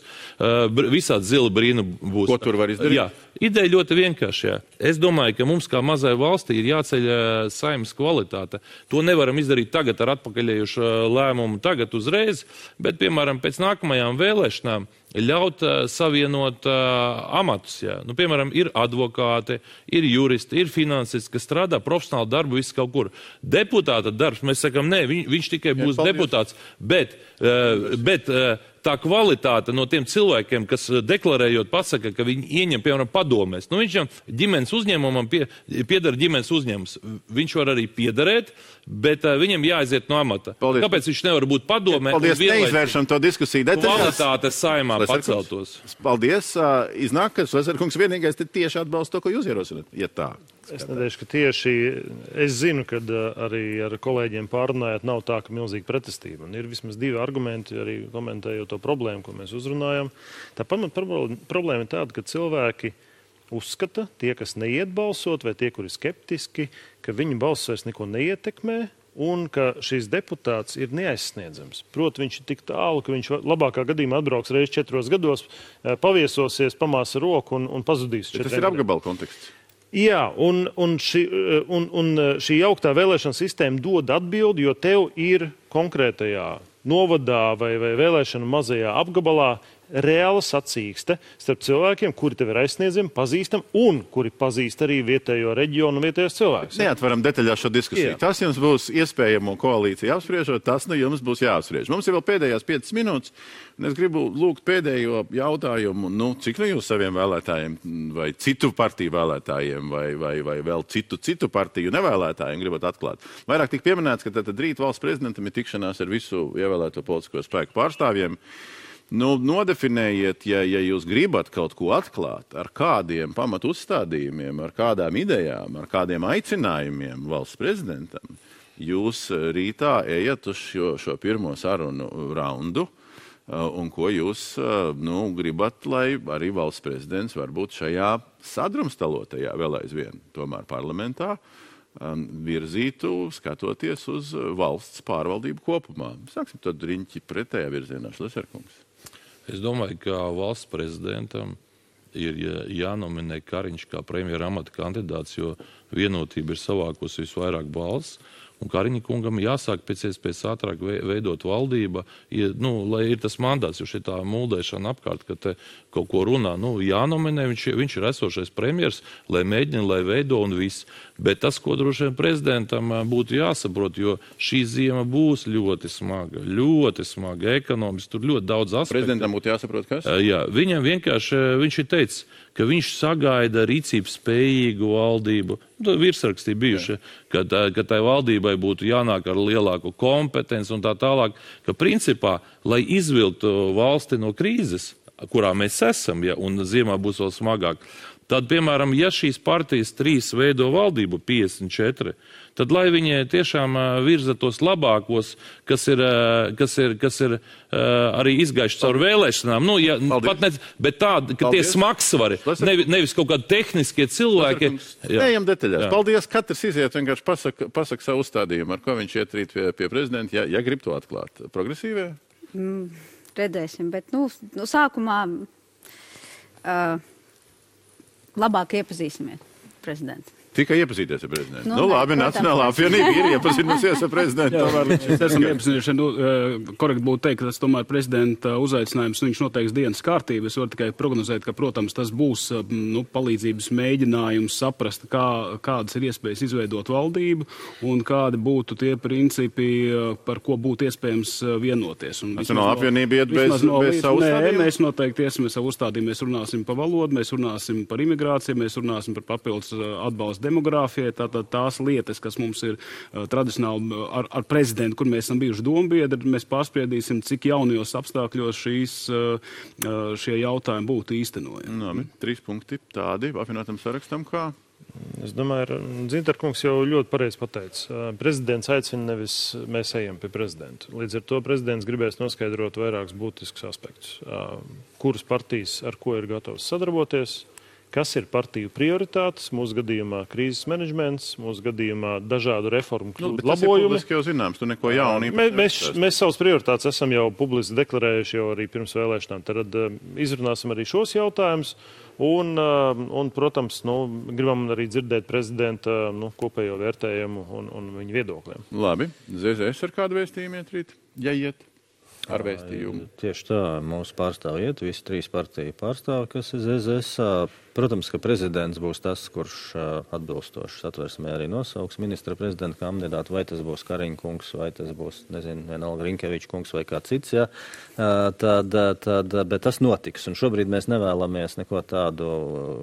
visādi zila brīna būs. Ko tur var izdarīt? Jā, ideja ļoti vienkārši. Jā. Es domāju, ka mums kā mazai valstī ir jāceļ Saeimas kvalitāte. To nevaram izdarīt tagad ar atpakaļējušu lēmumu tagad uzreiz, bet, piemēram, pēc nākamajām vēlēšanām ļaut savienot amatus. Jā. Piemēram, ir advokāti, ir juristi, ir finansisti, kas strādā profesionāli darbu visu kaut kur. Deputāta darbs, mēs sakam, nē, viņš tikai būs deputāts, bet tā kvalitāte no tiem cilvēkiem, kas deklarējot pasaka, ka viņi ieņem, piemēram, padomēs. Viņš jau ģimenes uzņēmumam piedara ģimenes uzņēmums. Viņš var arī piederēt, bet viņam jāaiziet no amata. Paldies. Kāpēc viņš nevar būt padomē? Paldies, neizvēršam to diskusiju detaļās. Kvalitāte Saeimā paceltos. Paldies. Iznāk, ka Šlesnerkungs vienīgais tieši atbalsta to, ko jūs ierosināt. Ja tā. Es nedēļu, ka tieši es zinu, ka arī ar kolēģiem pārunājot nav tā, ka milzīga pretestība. Un ir vismaz divi argumenti, arī komentējot to problēmu, ko mēs uzrunājam. Tā problēma ir tāda, ka cilvēki uzskata, tie, kas neiet balsot, vai tie, kuri skeptiski, ka viņu balss vairs neko neietekmē, un ka šis deputāts ir neaizsniedzams. Proti, viņš ir tik tālu, ka viņš labākā gadījumā atbrauks reiz 4 gados, paviesosies, pamāsa roku un pazudīs. Tas ir apgabala konteksts. Jā, un šī jauktā vēlēšana sistēma dod atbildi, jo tev ir konkrētajā novadā vai vēlēšana mazajā apgabalā reāla sacīkste starp cilvēkiem, kuri tev ir aizsniedzami, pazīstami un kuri pazīst arī vietējo reģionu un vietējos cilvēkus. Neatveram detaļās šo diskusiju. Jā. Tas jums būs iespējamo koalīciju apspriežot, tas jums būs jāapspriež. Mums ir vēl pēdējās 5 minūtes, un es gribu lūgt pēdējo jautājumu, cik no jūs saviem vēlētājiem vai citu partiju vēlētājiem vai vēl citu partiju nevēlētājiem gribat atklāt. Vairāk tik pieminēts, ka tad rīt valsts prezidentam ir tikšanās ar visu ievēlēto politisko spēku pārstāvjiem. Nodefinējiet, ja jūs gribat kaut ko atklāt, ar kādiem pamatu uzstādījumiem, ar kādām idejām, ar kādiem aicinājumiem valsts prezidentam, jūs rītā ejat uz šo pirmo sarunu raundu, un ko jūs gribat, lai arī valsts prezidents varbūt šajā sadrumstalotajā vēl aizvien tomēr parlamentā virzītu, skatoties uz valsts pārvaldību kopumā. Sāksim tad riņķi pretējā virzienā, Šlesnerkungs. Es domāju, ka valsts prezidentam ir jānominē Kariņš kā premjera amata kandidāts, jo Vienotība ir savākusi visvairāk balss. Un Kariņa kungam jāsāk pēc iespējas ātrāk veidot valdība, lai ir tas mandāts, jo šitā muldēšana apkārt, ka te kaut ko runā, jānominē, viņš ir esošais premjers, lai mēģina, lai veido un viss. Bet tas, ko droši vien prezidentam būtu jāsaprot, jo šī ziema būs ļoti smaga, ekonomiski, tur ļoti daudz aspektu. Prezidentam būtu jāsaprot, kas? Jā, viņam vienkārši, viņš ir teicis, ka viņš sagaida rīcības spējīgu valdību, virsrakstī bijuši, ka tai valdībai būtu jānāk ar lielāku kompetenci un tā tālāk, ka principā, lai izvilktu valsti no krīzes, kurā mēs esam, un ziemā būs vēl smagāk, tad, piemēram, ja šīs partijas 3 veido valdību 54, tad lai viņi tiešām virza tos labākos, kas ir arī izgājuši caur vēlēšanām. Bet tādi, ka tie smagsvari, nevis kaut kādi tehniskie cilvēki. Ejam detaļās. Paldies, katrs iziet vienkārši pasaka savu uzstādījumu, ar ko viņš iet rīt pie prezidenta, ja grib to atklāt. Progresīvie? Redzēsim, bet, sākumā labāk iepazīsimies prezidentu. Tikai iepazīties ar prezidentu. Labi, Nacionālā apvienība ir iepazinusies ar prezidentu. Mēs esam iepazinušies. Korekti būtu teikt, ka tas tomēr prezidenta uzaicinājums, viņš noteiks dienas kārtību. Es varu tikai prognozēt, ka, protams, tas būs palīdzības mēģinājums saprast, kādas ir iespējas izveidot valdību un kādi būtu tie principi, par ko būtu iespējams vienoties. Nacionālā apvienība iet bez savu uzstādījumu? Mēs noteikti iesim savu uzstādījumu. Mēs runāsim par valodu, mēs runāsim par imigrāciju, mēs runāsim par papildus atbalstu demogrāfijai, tātad tās lietas, kas mums ir tradicionāli ar prezidentu, kur mēs esam bijuši dombiedri, mēs pārspriedīsim, cik jaunajos apstākļos šie jautājumi būtu īstenojami. 3 punkti tādi apvienotam sarakstam kā? Es domāju, Dzintarkungs jau ļoti pareizi pateica. Prezidents aicina, nevis mēs ejam pie prezidenta. Līdz ar to prezidents gribēs noskaidrot vairākus būtiskus aspektus. Kuras partijas ar ko ir gatavs sadarboties, kas ir partiju prioritātes, mūsu gadījumā krīzes menedžments, mūsu gadījumā dažādu reformu labojumi. Tas jau zināms, tu neko jaunu Mēs savas prioritātes esam jau publiski deklarējuši jau arī pirms vēlēšanām. Tad izrunāsim arī šos jautājumus un protams, gribam arī dzirdēt prezidenta kopējo vērtējumu un viņu viedokļiem. Labi, ZZS ar kādu vēstījumu iet rīt? Ja iet? Ar vēstījumu. Tieši tā, mūsu pārstāvi iet, visi 3 partiju pārstāvi, kas ir ZZS. Protams, ka prezidents būs tas, kurš atbilstoši satversmē arī nosauks ministra prezidenta kandidātu, vai tas būs Kariņa kungs, vai tas būs, vienalga Rinkeviča kungs vai kā cits, bet tas notiks. Un šobrīd mēs nevēlamies neko tādu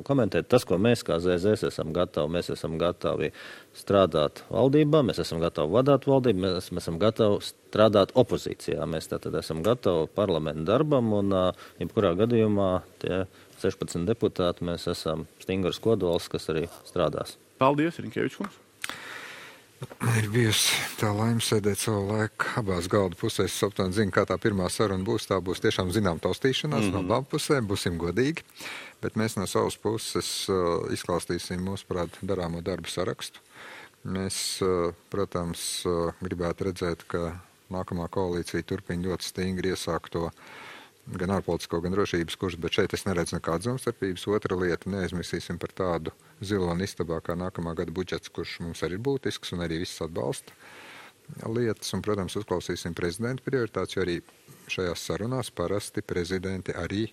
komentēt. Tas, ko mēs kā ZZS esam gatavi strādāt valdībā, mēs esam gatavi vadāt valdību, mēs esam gatavi strādāt opozīcijā. Mēs tātad esam gatavi parlamentu darbam un jebkurā gadījumā tie 16 deputāti, mēs esam stingrs kodols, kas arī strādās. Paldies, Rinkevičs kungs. Ir bijusi tā laime sēdēt savu laiku abās galda pusēs. Es aptuveni zinu, kā tā pirmā saruna būs. Tā būs tiešām zinām taustīšanās no abām pusēm, būsim godīgi. Bet mēs no savas puses izklāstīsim mūsuprāt darāmo darbu sarakstu. Mēs, protams, gribētu redzēt, ka nākamā koalīcija turpina ļoti stingri iesākto gan ārpolitisko, gan drošības kursu, bet šeit es neredzu nekādas domstarpības. Otra lieta, neaizmirsīsim par tādu ziloni istabā kā nākamā gada budžets, kurš mums arī ir būtisks un arī viss atbalsta lietas. Un, protams, uzklausīsim prezidenta prioritātes, jo arī šajās sarunās parasti prezidenti arī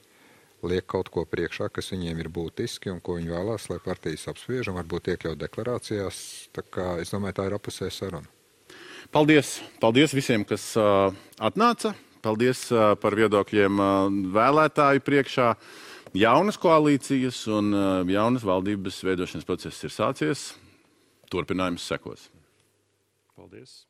liek kaut ko priekšā, kas viņiem ir būtiski un ko viņi vēlās, lai partijas apspriež un varbūt iekļaut deklarācijās. Tā kā es domāju, tā ir apusēja saruna. Paldies! Paldies visiem, kas atnāca! Paldies par viedokļiem vēlētāju priekšā. Jaunas koalīcijas un jaunas valdības veidošanas process ir sācies. Turpinājums sekos. Paldies!